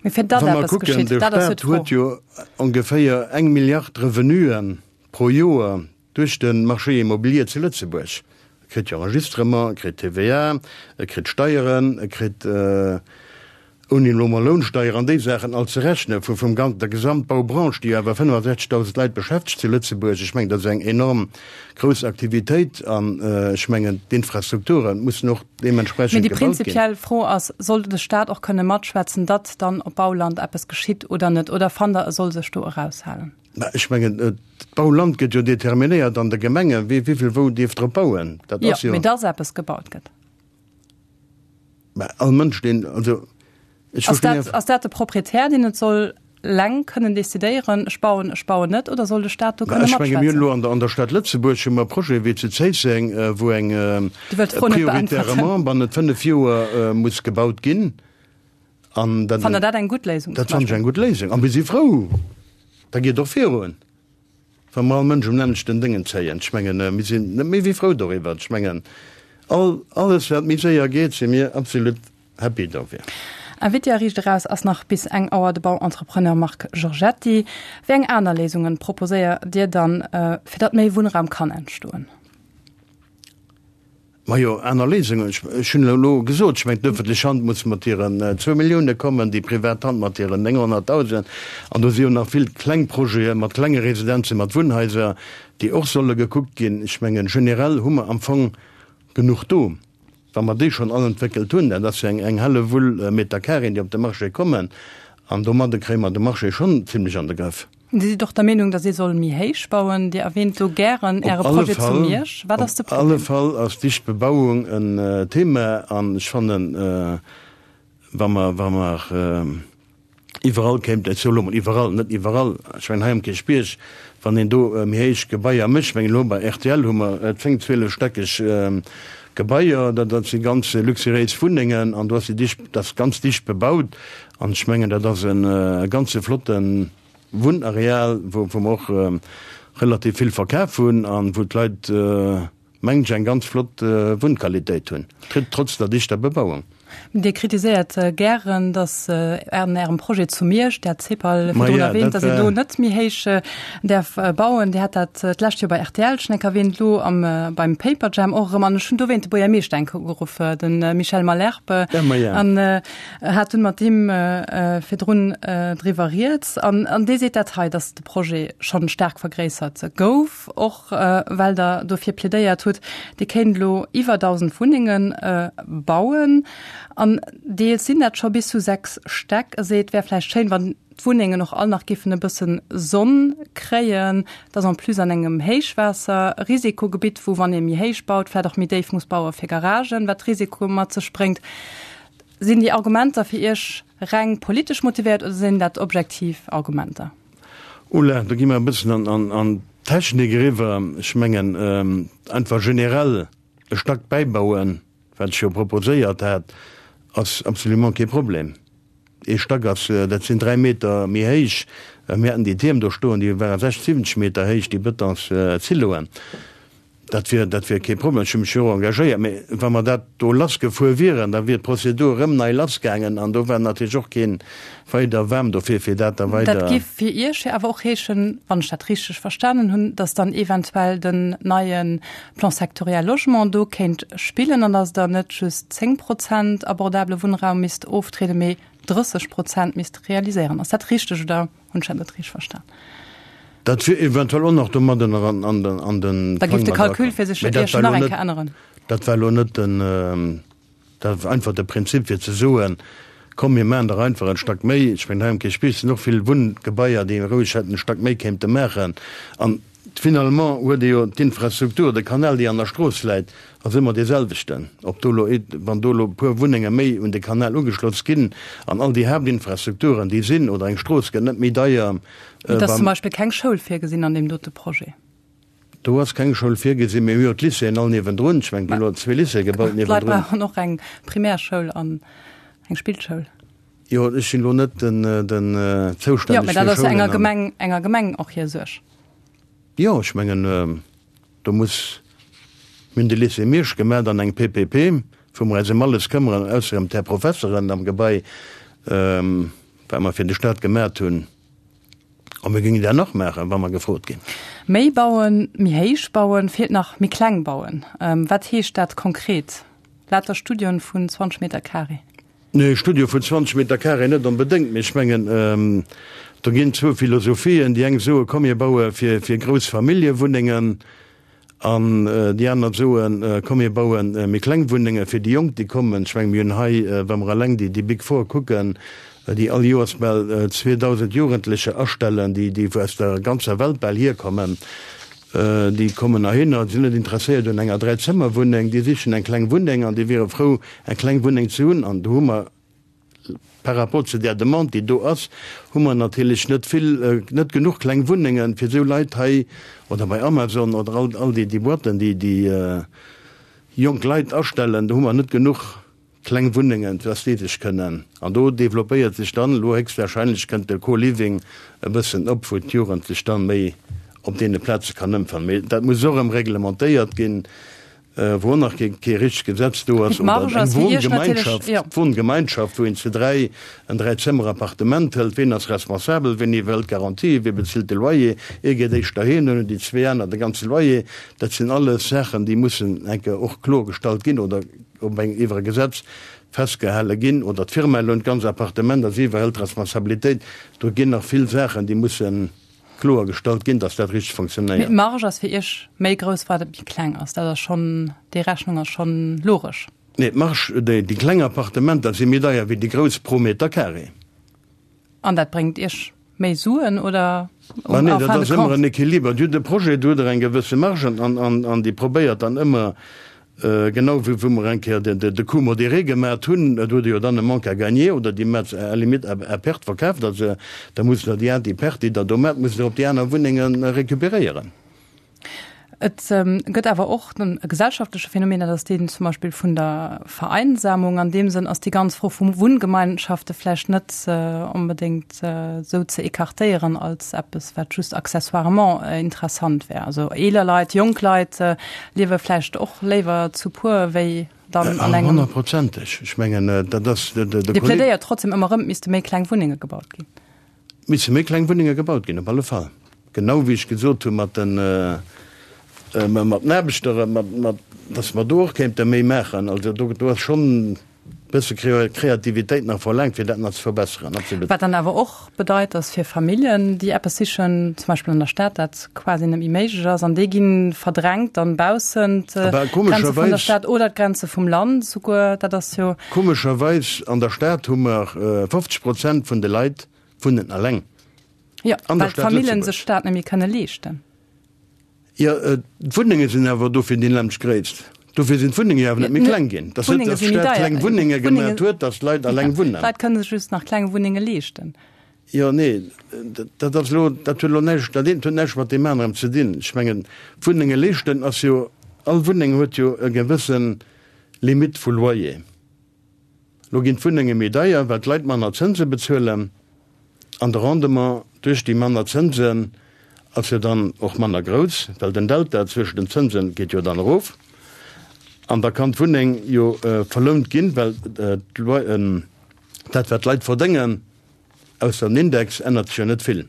B: Mee fir datt
C: wa mer
B: eppes
C: kucken,
B: geschitt,
C: de
B: dat ass jo
C: Stat
B: d'Fro.
C: huet jo ongeféier eng Milliard Revenuen pro Joer duerch de Marché immobilier zu Lëtzebuerg. E kritt jo Enregistrement, e kritt TVA, e kritt Steieren, e kritt. Ouni elo mol Lounsteier an déi Saachen all ze rechnen, vu vum gan der Gesamtbaubranche, déi jo awer 65.000 Leit beschäftegt zu Lëtzebuerg. Ech mengen, dat ass eng enorm grouss Aktivitéit an ech mengen, d'Infrastrukture mussen och
B: Mee
C: deementsprechend
B: déi
C: gebaut ginn.
B: prinzipiell Fro ass, Soll de Stat och kënne matschwätzen, datt dann op Bauland eppes geschitt oder net? Oder fannt Der, e soll sech do eraushalen?
C: Mä ech mengen, d'Bauland gëtt jo determinéiert an de Gemengen, wie wéivill wou dierf drop bauen.
B: Dat ass jo. Jo, mee datt eppes gebaut gëtt.
C: Mä all Mënsch, deen, also
B: ech Ass dat, ass dat de Proprietär, deen et soll leng kënnen decidéieren, ech bauen, ech bauen net, oder soll de Staat do kënne
C: matschwätzen? Ech menge mir hunn elo an der,
B: an
C: der Stad Lëtzebuerg hu mer Projete wéi zu Zéisseng, wou eng
B: Dir wëllt d'Fro net beäntwerten.
C: prioritairement bannent 5 Joer muss gebaut ginn.
B: An dat, Fannt Der dat eng gutt Léisung
C: zum Dat fannen ech eng gutt Léisung. A mir si frou, da geet och virun. Wa mer all Mënsch um nämmlechten Déngen zéien, ech mengen, mir sinn net méi wéi frou doriwwer. Ech mengen, all, alles wat méi séier geet, si mir absolut happy dofir.
B: Invité a Riicht Eraus ass nach bis eng Auer de Bauentrepreneur Marc Giorgetti. Wéi eng aner Léisungen proposéiert Dir dann, fir datt méi Wunnraum kann entstoen?
C: Majo, aner Léisungen, ech hunn elo gesot, ech mengen d'öffentlech Hand muss mat hiren zwou Millioune kommen, déi privat Hand mat hiren 900.000. An do si jo nach vill kleng Projete mat klenge Residenzen, mat Wunnhaiser, déi och solle gekuckt ginn. Ech mengen, generell hu mer am Fong genuch do. Wa mer déi schonn all entwéckelt hunn, dat ass jo eng Hellewull Meter Carréen, déi op de Marché kommen, an domadde kréie mer de Marché schonn zimlech an de Grëff.
B: Dir sidd och der Meenung, datt ee soll méi héich bauen. Dir erwähnt do gären Äre Projet zu Miersch. Wat ass de
C: Problem? Op alle Fall ass dicht Bebauung en Thema an ech fannen, wa mer, wa mer iwwerall kéinten, ech soe lo mol iwwerall, net iwwerall, ech mengen hei am Kierchbierg, wann een do méi héich Gebaier mécht, ech mengen elo bei rtl hu mer 10, 12 stäckeg Gebaier, dat dat si ganz luxuriéis Wunnengen an do ass déi dicht, dat ass ganz dicht bebaut an ech mengen, dat ass e ganze flotten Wunnareal, wou mer och relativ vill verkaf hunn an wou d'Leit, mengen ech, eng ganz flott Wunnqualitéit hunn, trotz der dichter Bebauung.
B: Dir kritiséiert gären, datt an Ärem Projet zu Miersch, Dir hat d'CEPAL virdrun erwähnt, datt een do net méi héich däerf bauen. Dir hat dat d'lescht Joer bei rtl schonn eng Kéier erwähnt, elo beim Paperjam och erëm. An ech hunn dowéint de Buergermeeschter eng Kéier ugeruff, de Michel Malherbe. An hat dunn mat him virdrun driwwer rieds an an dee seet dat hei, datt de Projet schonn staark vergréissert gouf, och well Der dofir plädéiert hutt, Dir kéint elo iwwer 1.000 Wunnenge bauen an deels sinn dat scho bis zu 6 Stäck. E seet, et wär vläicht schéin, wann d'Wunnengen och all nach giffen e bëssen Sonn kréien. Et ass en plus an engem Héichwaasserrisikogebitt, wou, wann ee méi héich baut, vläicht och méi déif muss baue fir Garagen, wat Risikoe mat sech bréngt. Sinn déi Argumenter fir Iech reng politesch motivéiert oder sinn dat objektiv Argumenter?
C: Oula, do gi mer e bëssen an d'Technik eriwwer. Ech mengen, einfach generell e Stack bäibauen, wat ech jo proposéiert hat, ass absolument kee Problem. Ee Stack ass, dat sinn 3 Meter méi héich. Mir haten déi Tierm do stoen, déi ware 60, 70 Meter héich, déi Betonsziloen. Dat wier, dat wier kee Problem. Ech hu mech jo och engagéiert. Mee wa mer dat do lassgefuer wieren, da wier d'Prozedur erëm nei lassgaangen an do war natierlech och kee weider waarm dofir, fir dat da weider.
B: Dat géif fir Iech jo awer och heeschen, wann ech dat richteg verstanen hunn, datt dann eventuell den neie Plan sectoriel Logement do kéint spillen an datt Der net just 10 Prozent abordabele Wunnraum misst oftrieden, mee 30 Prozent misst realiséieren. Ass dat richteg oder? Hunn ech dat net richteg verstan?
C: Dat wier eventuell och nach domadden an den an den
B: Da géif de Calcul fir sech Iech nach eng Kéier änneren.
C: Dat war elo net den, dat war einfach de Prinzip fir ze soen, komm mir maachen der einfach en Stack méi. Ech mengen hei am Kierchbierg sinn och vill Wunngebaier, déi roueg hätten e Stack méi kéinte maachen. An Finalement huet ee jo d'Infrastruktur, de Kanal, déi an der Strooss läit, ass ëmmer dee selwechten. Ob do elo, wann do elo e puer Wunnenge méi un de Kanal ugeschloss ginn an all déi Haaptinfrastrukturen, déi sinn, oder eng Strooss gëtt net méi deier.
B: Et ass zum Beispill keng Schoul virgesinn an deem dote Projet.
C: Do ass keng Schoul virgesinn. Mir hu jo d'Lycéeën all niewendrun. Ech mengen, et gi elo zwee Lycéeë gebaut
B: niewendrun. D'Leit brauchen och eng Primärschoul an eng Spillschoul.
C: Jo, ech sinn elo net den den
B: zoustänneg. Jo, mä dat ass enger Gemeng, enger Gemeng och hir Suerg.
C: Jo, ech mengen, do muss, mir hunn de Lycée Miersch gemat an eng PPP, wou mer eis ëm alles këmmeren, ausser ëm d'Här Professeren am Gebai, wat mer fir de Stat gemat hunn. A mir géingen dat nach maachen, wa mer gefrot ginn.
B: Méi bauen, méi héich bauen, feelt nach méi kleng bauen. Wat heescht dat konkret? Lauter Studioen vun 20 Meter carré.
C: Nee, Studio vun 20 Meter Carré net onbedéngt, mee ech mengen, do ginn zwou Philosophien. Déi eng soe komm mir baue fir fir grouss Familljewunnengen an déi aner soen, komm mir baue méi kleng Wunnenge fir déi Jonk déi kommen. Ech menge mir hunn hei, wa mer eleng déi déi Big Four kucken, déi all Joers bal 2.000 Jugendlecher astellen, déi déi aus der ganzer Welt bal hierkommen, Déi kommen heihinner, déi sinn net interesséiert un enger Dräizëmmerwunneng, déi sichen eng kleng Wunneng an déi wiere frou, eng kleng Wunneng ze hunn. An do hu mer par rapport zu där Demande, déi do ass, hu mer natierlech net vill, net genuch kleng Wunnengen, fir esou Leit hei oder bei Amazon oder all, all déi, déi Boîten, déi déi jonk Leit astellen, do hu mer net genuch Kleng Wunnengen, dass déi sech kënnen, an do developpéiert sech dann elo héchstwahrscheinlech kënnt de Co-Living e bëssen op, wou d'Jugend sech dann méi op deene Plaze kann ëmfannen. Mee dat muss och erëm reglementéiert ginn, wou och nach kee richtegt Gesetz do ass, oder eng Wohngemeinschaft, Wohngemeinschaft, wou een zu 3 en Dräizëmmer-Appartement hëlt, ween ass responsabel, ween iwwerhëlt d'Garantie, wee bezilt de Loyer, ee geet éischter heem, dann hunn déi zwee aner de ganze Loyer. Dat sinn alles Saachen, déi mussen eng Kéier och kloergestallt ginn oder op eng iwwer e Gesetz festgehale ginn, oder d'Firma lount d'ganz Appartement a si iwwerhëlt d'Responsabilitéit. Do ginn nach vill Saachen, déi musse kloer gestallt ginn, dass dat richteg
B: Mee
C: fonctionnéiert.
B: d'Marge ass fir Iech méi grouss, wat et méi kleng ass. Dat ass schonn, déi Rechnung ass schonn logesch.
C: Nee, d'Marge, déi kleng Appartementer si méi deier wéi déi grouss pro Meter carré.
B: An dat bréngt Iech méi Suen oder
C: Ma nee, dat ass ëmmer en Equiliber. Dir hutt e Projet, do hutt Der eng gewësse Marge an, an, an déi probéiert dann ëmmer, genau wéi wou mer eng Kéier de, de Coût modéré gemat hunn, do hutt Der jo dann e Manque à gagner oder Dir mat à la limite à, à perte verkaaft Der se, da musst Der déi, déi Perte, déi Der do mat, musst Der op déi aner Wunnenge récupéréieren.
B: Et gëtt awer och e gesellschaftleche Phänomen, dat ass deen zum Beispill vun der Vereinsamung. An deem Sënn ass déi ganz Fro vu Wunngemeinschafte vläicht net onbedéngt esou ze écartéieren als eppes, wat just accessoirement interessant wär. Also eeler Leit, jonk Leit liewe vläicht och léiwer zu puer wéi dann an engem.
C: Honnertprozenteg. Ech mengen, dat ass de Kolleg.
B: Dir plädéiert trotzdem ëmmer erëm, et misste méi kleng Wunnenge gebaut ginn.
C: Misse méi kleng Wunnenge gebaut ginn, op alle Fall. Genau wéi ech gesot hu mat den, mat den Aarbechter, mat, mat, dass mer do och kéinte méi maachen. Also do, do ass schonn e bësse Kreativitéit nach verlaangt, fir dat nach ze verbesseren, absolut.
B: Wat dann awer och bedeit, dass fir Familljen, déi eppes sichen, zum Beispill an der Stad, dat quasi net méi méiglech ass an déi gi verdrängt dann baussent d'Grenze vun der Stad oder d'Grenze vum Land souguer. Dat ass jo.
C: Komescherweis, an der Stad hu mer 50 Prozent vun de Leit wunnen eleng.
B: Jo, well d'Famillen sech dat net méi kënne leeschten.
C: Jo, d'Wunnenge sinn awer dofir déi lemmeg Gréisst. Dofir sinn d'Wunnenge jo awer net méi kleng ginn. Dass net, dass d'Stad kleng Wunnenge gemat huet, dass d'Leit eleng wunnen.
B: D'Leit kënne sech just nach kleng Wunnenge leeschten.
C: Jo, nee, dat ass elo, dat huet elo näischt, dat eent huet näischt mat deem anerem ze dinn. Ech mengen, Wunnenge leeschten ass jo, all Wunneng huet jo e gewësse Limite vu Loyer. Lo ginn d'Wunnenge méi deier, well d'Leit manner Zënse bezuelen an de Rendement duerch déi manner Zënsen ass jo dann och manner grouss, well den Delta zwëschen den Zënse geet jo dann erof an da kann d'Wunneng jo verlount ginn, well dat wat d'Leit verdéngen, ausser den Index, ännert sech jo net vill.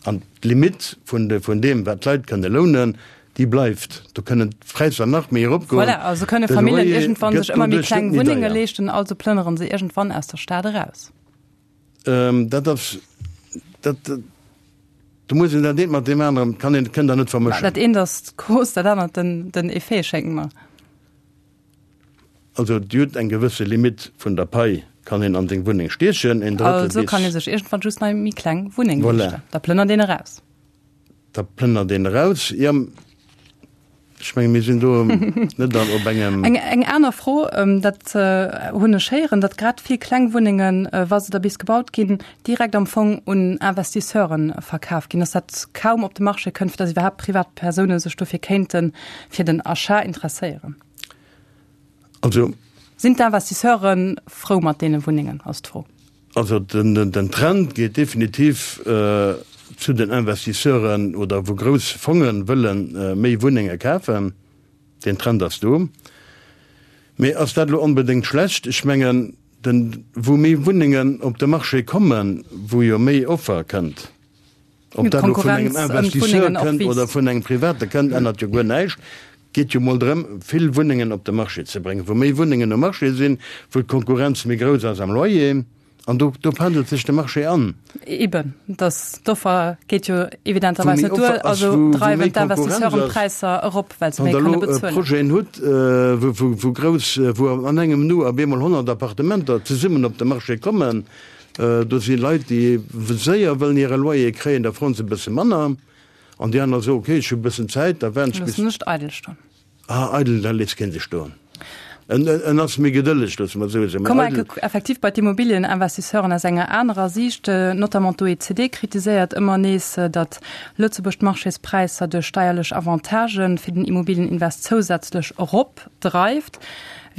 C: An d'Limitt vun deem, wat d'Leit kënne lounen, déi bleift. Do kënnen d'Präisser nach méi eropgoen.
B: Voilà, also kënne Familljen iergendwann sech ëmmer méi kleng Wunnenge leeschten, also plënnere se iergendwann aus der Stad eraus.
C: Dat ass, dat, do muss een dat eent mat deem aneren, kann een, kënnt Der net vermëschen.
B: Dat eent ass d'Cause, dat anert den Effet, schéngt mer.
C: Also Dir hutt eng gewësse Limitt vun der Pai, kann een an seng Wunneng stiechen,
B: een Drëttel bis. Also kann ee sech iergendwann just nach méi kleng Wunneng leeschten. Voilà. Da plënnert een eraus.
C: Da plënnert een eraus, jo. Ech menge mir sinn do net an op engem.
B: Eng, eng aner Fro, dat hunn ech héieren, datt grad vill kleng Wunnengen, wa se da bis gebaut ginn, direkt am Fong un Investisseuren verkaf ginn, datt dat kaum op de Marché kënnt, fir datt iwwerhaapt Privatpersoune sech dofir kéinte fir den Achat interesséieren.
C: Also.
B: Sinn d'Investisseure frou mat deene Wunnengen, ass d'Fro.
C: Also den Trend geet definitiv zu den Investisseuren oder wou grouss Fonge wëlle méi Wunnenge kafen. Deen Trend ass do. Mee ass dat elo onbedéngt schlecht? Ech mengen, wou méi Wunnengen op de Marché kommen, wou jo méi Offer kënnt, Ob dat elo vun engem Investisseur kënnt oder vun engem Private kënnt, ännert jo guer näischt. Geet jo mol drëm, vill Wunnengen op de Marché ze bréngen. Wou méi Wunnengen um Marché sinn, wou d'Konkurrenz méi grouss ass am Loyer, an do, do pendelt sech de Marché an.
B: Eben, dass d'Offer geet jo evidenterweis net duer, also dreiwen d'Investisseuren d'Präisser erop, well se méi kënne
C: bezuelen. Wann Der elo Projeten hutt, wou, wou grouss, wou an engem Nu op eemol 100 Appartementer zesummen op de Marché kommen, do si Leit, déi séier wëllen hire Loyer kréien, da froen se e bësse manner. An déi aner soen, ok, ech hu e bëssen Zäit, da waarden
B: ech bis. Loossen ech eidel stoen.
C: Ah, eidel, da léisst keen sech stoen. En, en ass méi gedëlleg, loosse mer et esou soen.
B: Komme mer enke effektiv bei d'Immobilieninvestisseuren aus enger anerer Siicht. Notamment d'OECD kritiséiert ëmmer nees, datt Lëtzebuerg d'Marchéspräisser duerch steierlech Avantagë fir den Immobilieninvest zousätzlech eropdreift.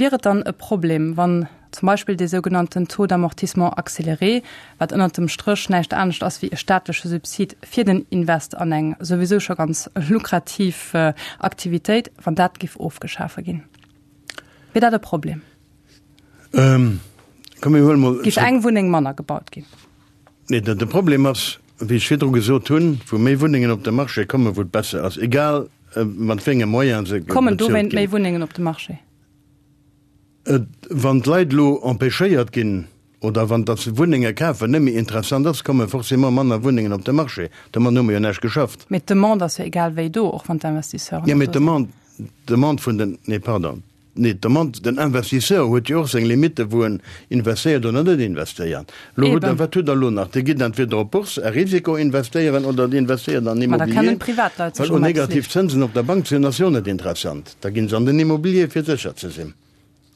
B: Wier et dann e Problem, wann Zum Beispill dee sougenannten Taux d'amortissement accéléré, wat ënnert dem Stréch näischt anescht ass wéi e staatleche Subsid fir den Invest an eng souwisou scho ganz lukrativ Aktivitéit, wann dat giff ofgeschafe ginn. Wier dat e Problem?
C: Komm mir huele mol.
B: Giff eng Wunneng manner gebaut ginn?
C: Nee, de Problem ass, wéi ech virdru gesot hunn, wou méi Wunnengen op de Marché kommen, wou et besser ass, egal mat wéi enge Moyene se
B: bezuelt ginn. Kommen dowéint méi Wunnengen op de Marché?
C: Et, wann d'Leit elo empêchéiert ginn, oder wann datt Wunnenge kafen net méi interessant ass, komme forcément manner Wunnengen op de Marché. Domat hu mer jo näischt geschafft.
B: Mee d'Demande ass jo egal wéi do, och wann d'Investisseuren
C: net do sinn. Jo, mee d'Demande, d'Demande vun den, nee pardon, nee d'Demande, den Investisseur huet jo och seng Limitten, wou en investéiert oder net investéiert. Elo hutt Der, wat hutt Der elo nach? Dir gitt entweder op d'Bourse à risiko investéieren oder Dir investéiert an
B: Immobilier. Ma da kennen d'Privatleit
C: sech och eppes leeschten. Well negativ Zënsen op der Bank ze hunn, ass jo net interessant. Da ginn se an den Immobilier, fir sécher ze sinn.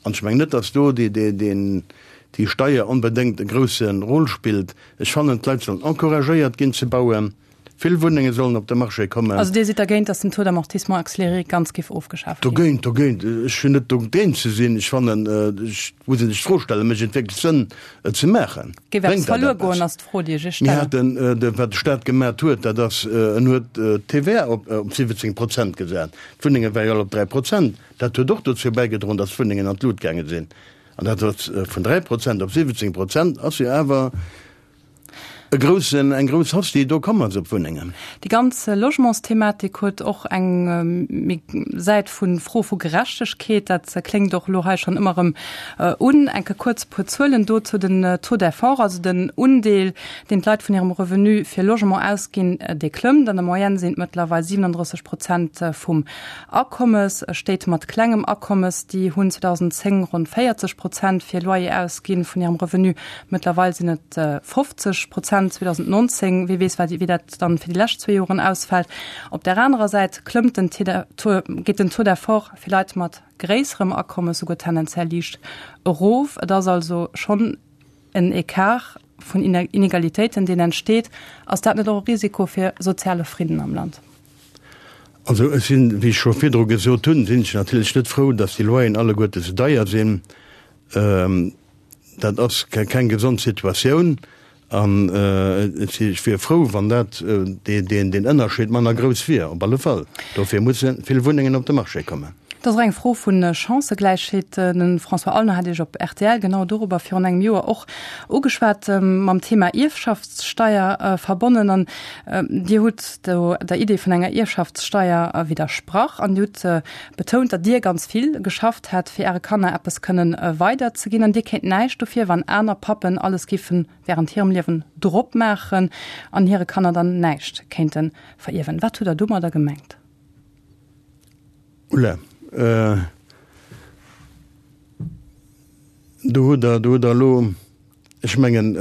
C: An ech mengen net, datt do déi Steier onbedéngt e grousse Rôle spillt. Ech fannen, d'Leit sollen encouragéiert ginn ze bauen. Vill Wunnenge sollen op de Marché kommen.
B: Also Dir sidd dergéint, datt den Taux d'amortissement accéléré ganz géif ofgeschaf
C: ginn? Dogéint, dogéint. Ech hunn net dogéint ze sinn. Ech fannen, ech muss een sech d'Fro stellen, mécht et wierklech Sënn, et ze maachen?
B: Géif eppes verluer goen, ass d'Fro, déi ech Iech
C: stellen. Mir haten, wat de Stat gemat huet, dat ass, en huet d'TVA op 17 Prozent gesat. D'Wunnenge ware jo all op 3 Prozent. Dat huet och dozou bäigedroen, datt d'Wunnengen an d'Lut gaange sinn. An dat ass vun 3 Prozent op 17 Prozent ass jo awer e groussen, eng grouss Hausse, déi do komm ass op d'Wunnengen.
B: Déi ganz Logementsthematik huet och eng méi Säit vu Fro vu Gerechtegkeet. Dat kléngt och elo hei schonn ëmmer erëm un. Enke kuerz e puer Zuelen dozou, Den Taux d'effort, also den Undeel, deen d'Leit vun hirem Revenu fir Logement ausginn, dee klëmmt. An der Moyenne sinn et mëttlerweil 37 Prozent vum Akommes. Stéit mat klengem Akommes, déi hunn 2010 ronn 40 Prozent fir Loyer ausginn vun hirem Revenu. Mëttlerweil sinn et 50 Prozent 2019. Wie weess, wéi dat dann fir déi lescht zwee Joren ausfält. Op där anerer Säit klëmmt den geet den Taux d'effort fir Leit mat gréisserem Akommes souguer tendenziell liicht erof. Et ass also schonn en Ecart vun Inegalitéiten, deen entsteet. Ass dat net och e Risiko fir soziale Fridden am Land?
C: Also ech sinn, wéi ech scho virdru gesot hunn, sinn ech natierlech net frou, datt déi Loyeren alleguerte sou deier sinn. Dat ass keng gesond Situatioun an ech wier frou, wann dat, deen Ënnerscheed manner grouss wier, op alle Fall. Dofir musse vill Wunnengen op de Marché kommen.
B: Et ass och eng Fro vu Chancëgläichheet. De François Aulner hat Iech op rtl genau dorobber virun engem Joer och ugeschwat, mam Thema Ierfschaftssteier verbonnen. An Dir hutt do der Idee vun enger Ierfschaftssteier widdersprach an Dir hutt betount, datt Dir ganz vill geschafft hätt, fir Äre Kanner eppes kënnen weiderzeginn. An Dir kéint näischt dofir, wann aner Pappen alles géife während hirem Liewen drop maachen an hire Kanner dann näischt kéinte verierwen. Wat hutt Der domadder gemengt?
C: Oula, do hutt Der, do hutt Der elo, ech mengen,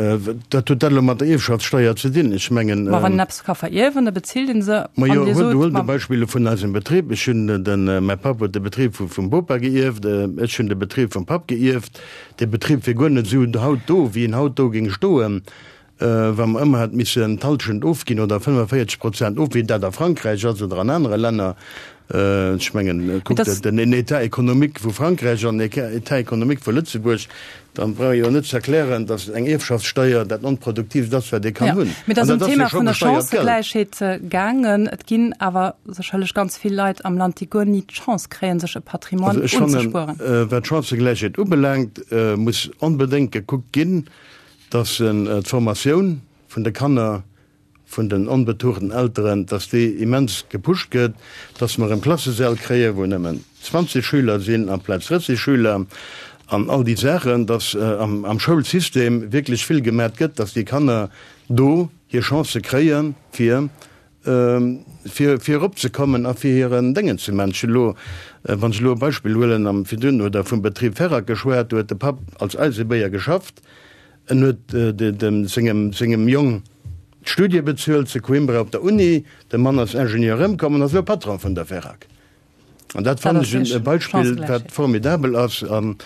C: wat huet dat elo mat der Ierfschaftssteuer ze dinn? Ech mengen.
B: Ma wann een eppes ka verierwen, da bezilt ee se.
C: Ma jo, huelt e Beispill elo vun eisem Betrib. Ech hunn den, mäi Papp huet de Betrib vum Bopa geierft, ech hunn de Betrib vum Papp geierft. Dee Betrib wier guer net esou haut do, wéi en haut do géing stoen, Wa mer ëmmer hätt missen d'Halschent ofginn oder 45 Prozent of, wéi dat a Frankräich ass oder an anere Länner, ech mengen, kuckt den État économique vu Frankräich an den État économique vu Lëtzebuerg, dann brauch ee jo net ze erklären, datt eng Ierfschaftssteuer dat Onproduktiivst ass, wat ee kann hunn.
B: Mee et ass ëm d'Thema vun der Chancëgläichheet gaangen. Et ginn awer sécherlech ganz vill Leit am Land, déi guer ni d'Chance kréien, sech e Patrimoine unzespueren.
C: Also ech fannen, wat d'Chancëgläichheet ubelaangt, muss onbedéngt gekuckt ginn, dass en d'Formatioun vun de Kanner. vun den onbetuchten Elteren, dass déi immens gepusht gëtt, dass mer erëm Klassesäll kréien, wou nëmmen 20 Schüler sinn amplaz 30 Schüler an all déi Saachen, dass am Schoulsystem wierklech vill gemat gëtt, dass déi Kanner do hir Chancë kréien, fir fir fir eropzekommen a fir hiren Déngen ze man. Ech hunn elo, wann ech elo e Beispill huelen, am virdrun huet Der vum Betrib Ferrac geschwat, do huet de Papp als Eisebéier geschafft, en huet dem sengem sengem Jong d'Studie bezuelt zu Coimbra op der Uni, de Mann ass Ingenieur erëmkomm an ass elo Patron vun der Ferrac. An dat fannen ech e Beispill, wat formidabel ass. An.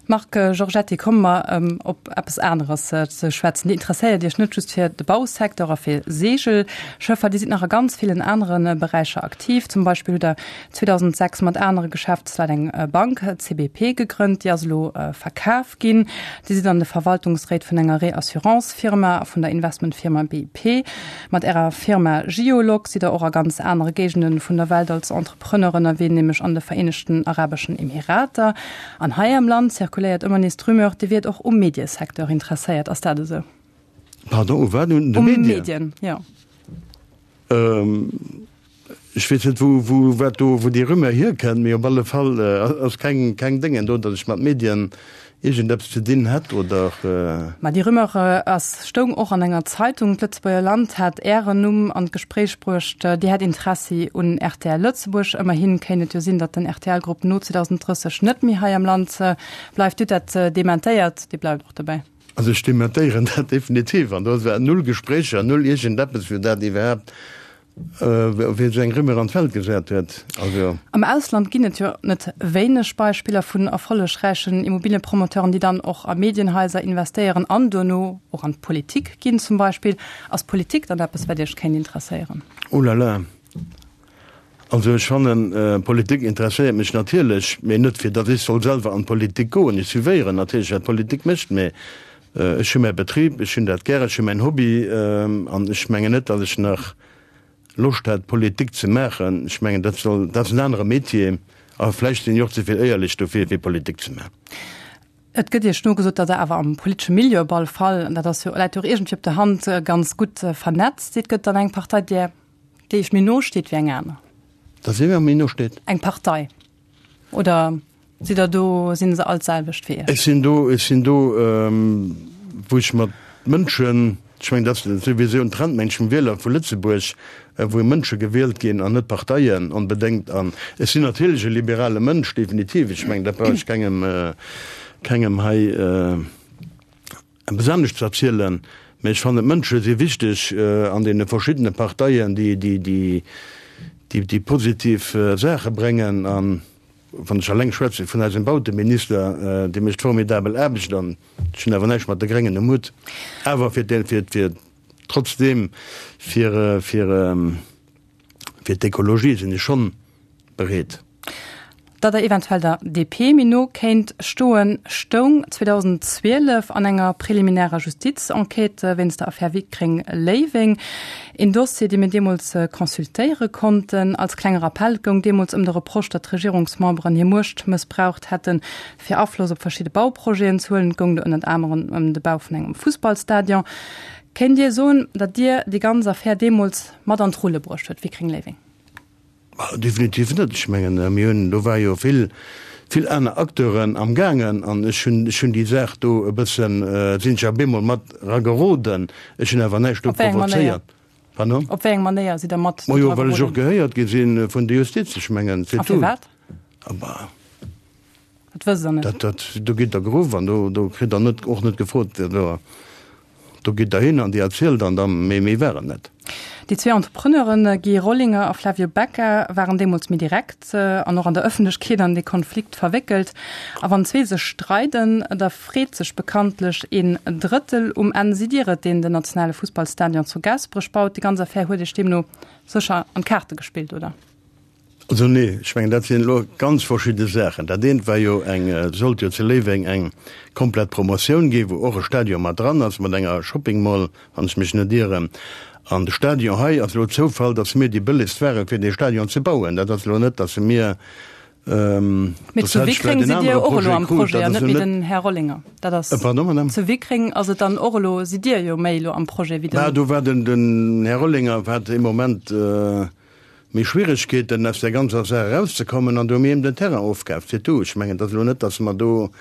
B: Marc Giorgetti, komme mer op eppes aneres ze schwätzen. Dir interesséiert Iech net just fir de Bausecteur a fir Seegelschëffer, Dir sidd nach a ganz villen anere Beräicher aktiv. Zum Beispill hutt Der 2006 mat anere Geschäftsleit eng Bank, CBP, gegrënnt, déi ass elo verkaf ginn. Dir sidd an de Verwaltungsréit vun enger Reassurance-Firma a vun der Investmentfirma BIP. Mat Ärer Firma Geolog sidd Der och a ganz anere Géigende vun der Welt als Entrepreneur ënnerwee, nämlech an de Vereenegten Arabeschen Emirater. An hei am Land zirkuléiert ëmmer nees d'Rumeur, Dir wiert och um Mediesecteur interesséiert. Ass dat esou?
C: Pardon, u wat? Un de
B: Medien? Um Medien, jo.
C: Ech weess net, wou, wou, wat do, wou déi Rumeur hierkënnt, mee op alle Fall ass keng, keng Déngen do, datt ech mat Medien iergendeppes ze dinn hätt oder.
B: Ma déi Rumeur ass, stoung och an enger Zeitung. D'Lëtzebuerger Land hat Ären Numm an d'Gespréich bruecht. Dir hätt Interessi un rtl Lëtzebuerg. Ëmmerhi kéint et jo sinn, datt den RTL-Grupp no 2030 net méi hei am Land bleift. Dir hutt dat dementéiert. Dir bleift och dobäi.
C: Also ech dementéieren dat definitiv. An do war null Gespréicher, null iergendeppes, wou dat iwwerhaapt Wien esou eng Rumeur an d'Welt gesat huet,
B: also. Am Ausland ginn et jo net wéineg Beispiller vun erfollegräichen Immobiliëpromoteuren, déi dann och a Medienhaiser investéieren an duerno och an d'Politik ginn zum Beispill. Ass Politik dann eppes, wat Iech kéint interesséieren?
C: Oh la la! Also ech fannen, Politik interesséiert mech natierlech, mee net fir datt ech soll selwer an d'Politik goen. Ech suivéieren natierlech, wat d'Politik mécht, mee Ech hu mäi Betrib, ech hunn dat gär, ech hu mäin Hobby an ech mengen net, datt ech nach Loscht hätt, Politik ze maachen. Ech mengen, dat soll, dat ass en anere Metier a vläicht sinn ech och ze vill éierlech dofir, fir Politik ze maachen.
B: Et gëtt Iech nogesot, datt Der awer am politesche Milieu op alle Fall, an dat ass jo, läit jo och iergendwéi op der Hand, ganz gutt vernetzt sidd. Gëtt et dann eng Partei, där, déi Iech méi no steet wéi eng aner?
C: Datt si mir méi no steet?
B: Eng Partei oder? Sidd der do, sinn se all d'selwecht fir Iech?
C: Ech sinn do, ech sinn do, wou ech mat Mënschen, ech mengen, dat ass souwisou en Trend, mengen ech, vum Wieler vu Lëtzebuerg, wou Mënsche gewielt ginn an net Parteien onbedéngt. An ech sinn natierlech e liberale Mënsch, definitiv. Ech mengen, dat brauch ech kengem, kengem hei eppes anescht ze erzielen. Mä ech fannen, d'Mënsche si wichteg an deene verschiddene Parteien, déi, déi, déi, déi positiv Saache bréngen. An Wann ech alleng schwätze vun eisem Bauteminister, dee mécht formidabel Aarbecht an ech hunn awer näischt mat de Gréngen um Hutt, awer fir fir fir trotzdeem fir fir fir d'Ekologie sinn ech schonn bereet.
B: Datt Der eventuell der DP méi no kéint stoen, stoung 2012 an enger preliminärer Justizenquête wéinst der Affär Wickreng-Léiweng. Een Dossier, dee mir deemools consultéiere konnten. Als klenge Rappell, et goung deemools ëm de Reproche, datt d'Regierungsmemberen hir Muecht mëssbraucht hätten, fir Afloss op verschidde Bauprojeten ze huelen. Et goung do ënnert anerem ëm de Bau vun engem Fussballstadion. Kéint Dir soen, datt Dir déi ganz Affär deemools mat an d'Rulle bruecht huet, Wickreng-Léiweng?
C: Definitiv net. Ech mengen, mir hunn, do war jo vill, vill aner Acteuren am gaangen an ech hunn, ech hunn déi Saach do e bëssen, sinn ech op eemol mat erageroden. Ech hunn awer näischt do
B: Op wéi eng Manéier?
C: provozéiert. Pardon?
B: Op wéi eng Manéier sidd Der mat
C: do Majo, well ech och gehéiert gi si vun der Justiz. Ech mengen,
B: c'est tout. A firwat?
C: Ah bah.
B: Dat wësst Der net?
C: Dat, dat, do gitt Der geruff an do, do kritt Der net, och net gefrot, do. Do gitt Der hin an Dir erzielt an da méi méi war et net.
B: Déi zwee Entrepreneuren Guy Rollinger a Flavio Becca waren deemools méi direkt an och an der Ëffentlechkeet an dee Konflikt verwéckelt. A wann zwee sech streiden, da freet sech bekanntlech een Drëttel. Um Enn sidd Dir et, deen den nationale Fussballstadion zu Gaasperech baut. Déi ganz Affär huet Iech deemno sécher an d'Kaarte gespillt, oder?
C: Also nee, ech mengen dat sinn elo ganz verschidde Saachen. Dat eent war jo eng, et sollt jo zu Léiweng eng komplett Promotioun ginn, wou och e Stadion mat dran ass, mat enger Shopping Mall, wann ech mech net ieren. An de Stadion hei ass elo Zoufall, datt mir déi bëllegst waren, fir dee Stadion ze bauen. Dat ass elo net, datt mir.
B: Mee zu Wickreng sidd Dir och elo am Projet an net méi den Här Rollinger. Dat ass.
C: Pardon, Madame?
B: Zu Wickreng ass et dann och elo, sidd Dir jo méi elo am Projet wéi den.
C: Bah, do war den, den Här Rollinger hat ee Moment méi Schwieregkeeten aus där ganzer Saach erauszekommen an do hu mir him den Terrain ofkaaft, c'est tout. Ech mengen, et ass elo net, datt mer do.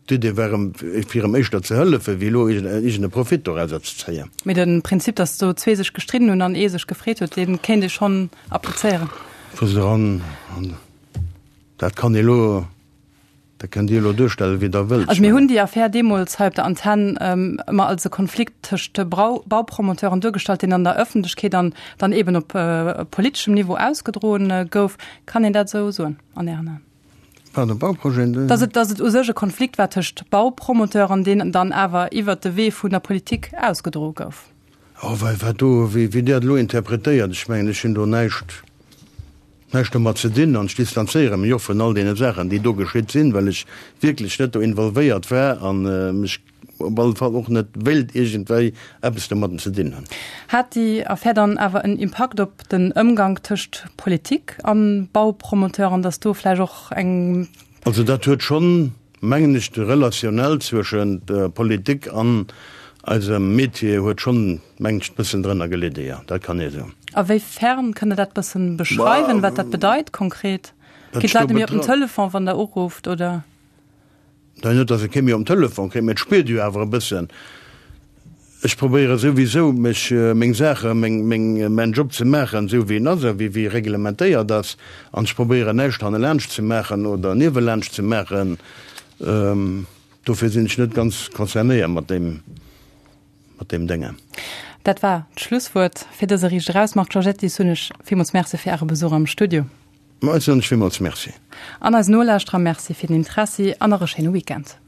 C: D'Idee war em, fir em éischter ze hëllefen, wéi elo iergend e Profit dorauser ze zéien.
B: Mee de Prinzip, datt do zwee sech gestridden hunn an ee sech gefreet huet, dee kéint ee schonn applizéieren.
C: Wou se eran, an dat kann ee elo, dat kënnt Dir elo duerstellen, wéi Der wëllt.
B: Also mir hunn déi Affär deemools hei op der Antenn ëmmer als e Konflikt tëscht Baupromoteuren duergestallt, deen an der Ëffentlechkeet an dann eeben op politeschem Niveau ausgedroen gouf. Kann een dat esou soen an Ären Aen?
C: Pardon, Bauprojeten?
B: Dass et, dass et u sech e Konflikt war tëscht Baupromoteuren, deen dann awer iwwert de Wee vun der Politik ausgedroe gouf.
C: Oh, wei, wat do, wéi, wéi Dir dat elo interpretéiert, ech mengen, ech hunn do näischt, näischt domat ze dinn an ech distanzéiere mech och vun all deene Saachen, déi do geschitt sinn, well ech wierklech net do involvéiert war a mech op alle Fall och net wéilt iergendwéi eppes domadden ze dinn hunn.
B: Hat déi Affär dann awer en Impakt op den Ëmgank tëscht Politik an Baupromoteuren, datt do vläicht och eng.
C: Also dat huet schonn, mengen ech, de Relationnel zwëschent Politik an eisem Metier huet schonn, mengen ech, e bëssen drënner gelidde, jo, dat kann ee soen.
B: A wéi fern? Kënnt Der dat bëssen beschreiwen, wat dat bedeit konkret? Ginn d'Leit net méi op den Telefon, wann Der urufft, oder?
C: Nein, net, datt e kee méi um Telefon kritt, mä et spiert jo awer e bëssen. Ech probéiere souwisou, mech, meng Saache, meng, meng, mäin Job ze maachen, esou wéi en ass a wéi, wéi e reglementéiert ass. An ech probéieren näischt hannelaanscht ze maachen oder niewelaanscht ze maachen. Dofir sinn ech net ganz concernéiert mat deem, mat deem Dénge.
B: Dat war d'Schlusswuert fir dëse Riicht Eraus. Marc Giorgetti, soen ech villmools Merci fir Äre Besuch am Studio.
C: Ma ech soen lech villmools Merci.
B: An eisen Nolauschterer Merci fir den Interessi an nach e schéine Weekend.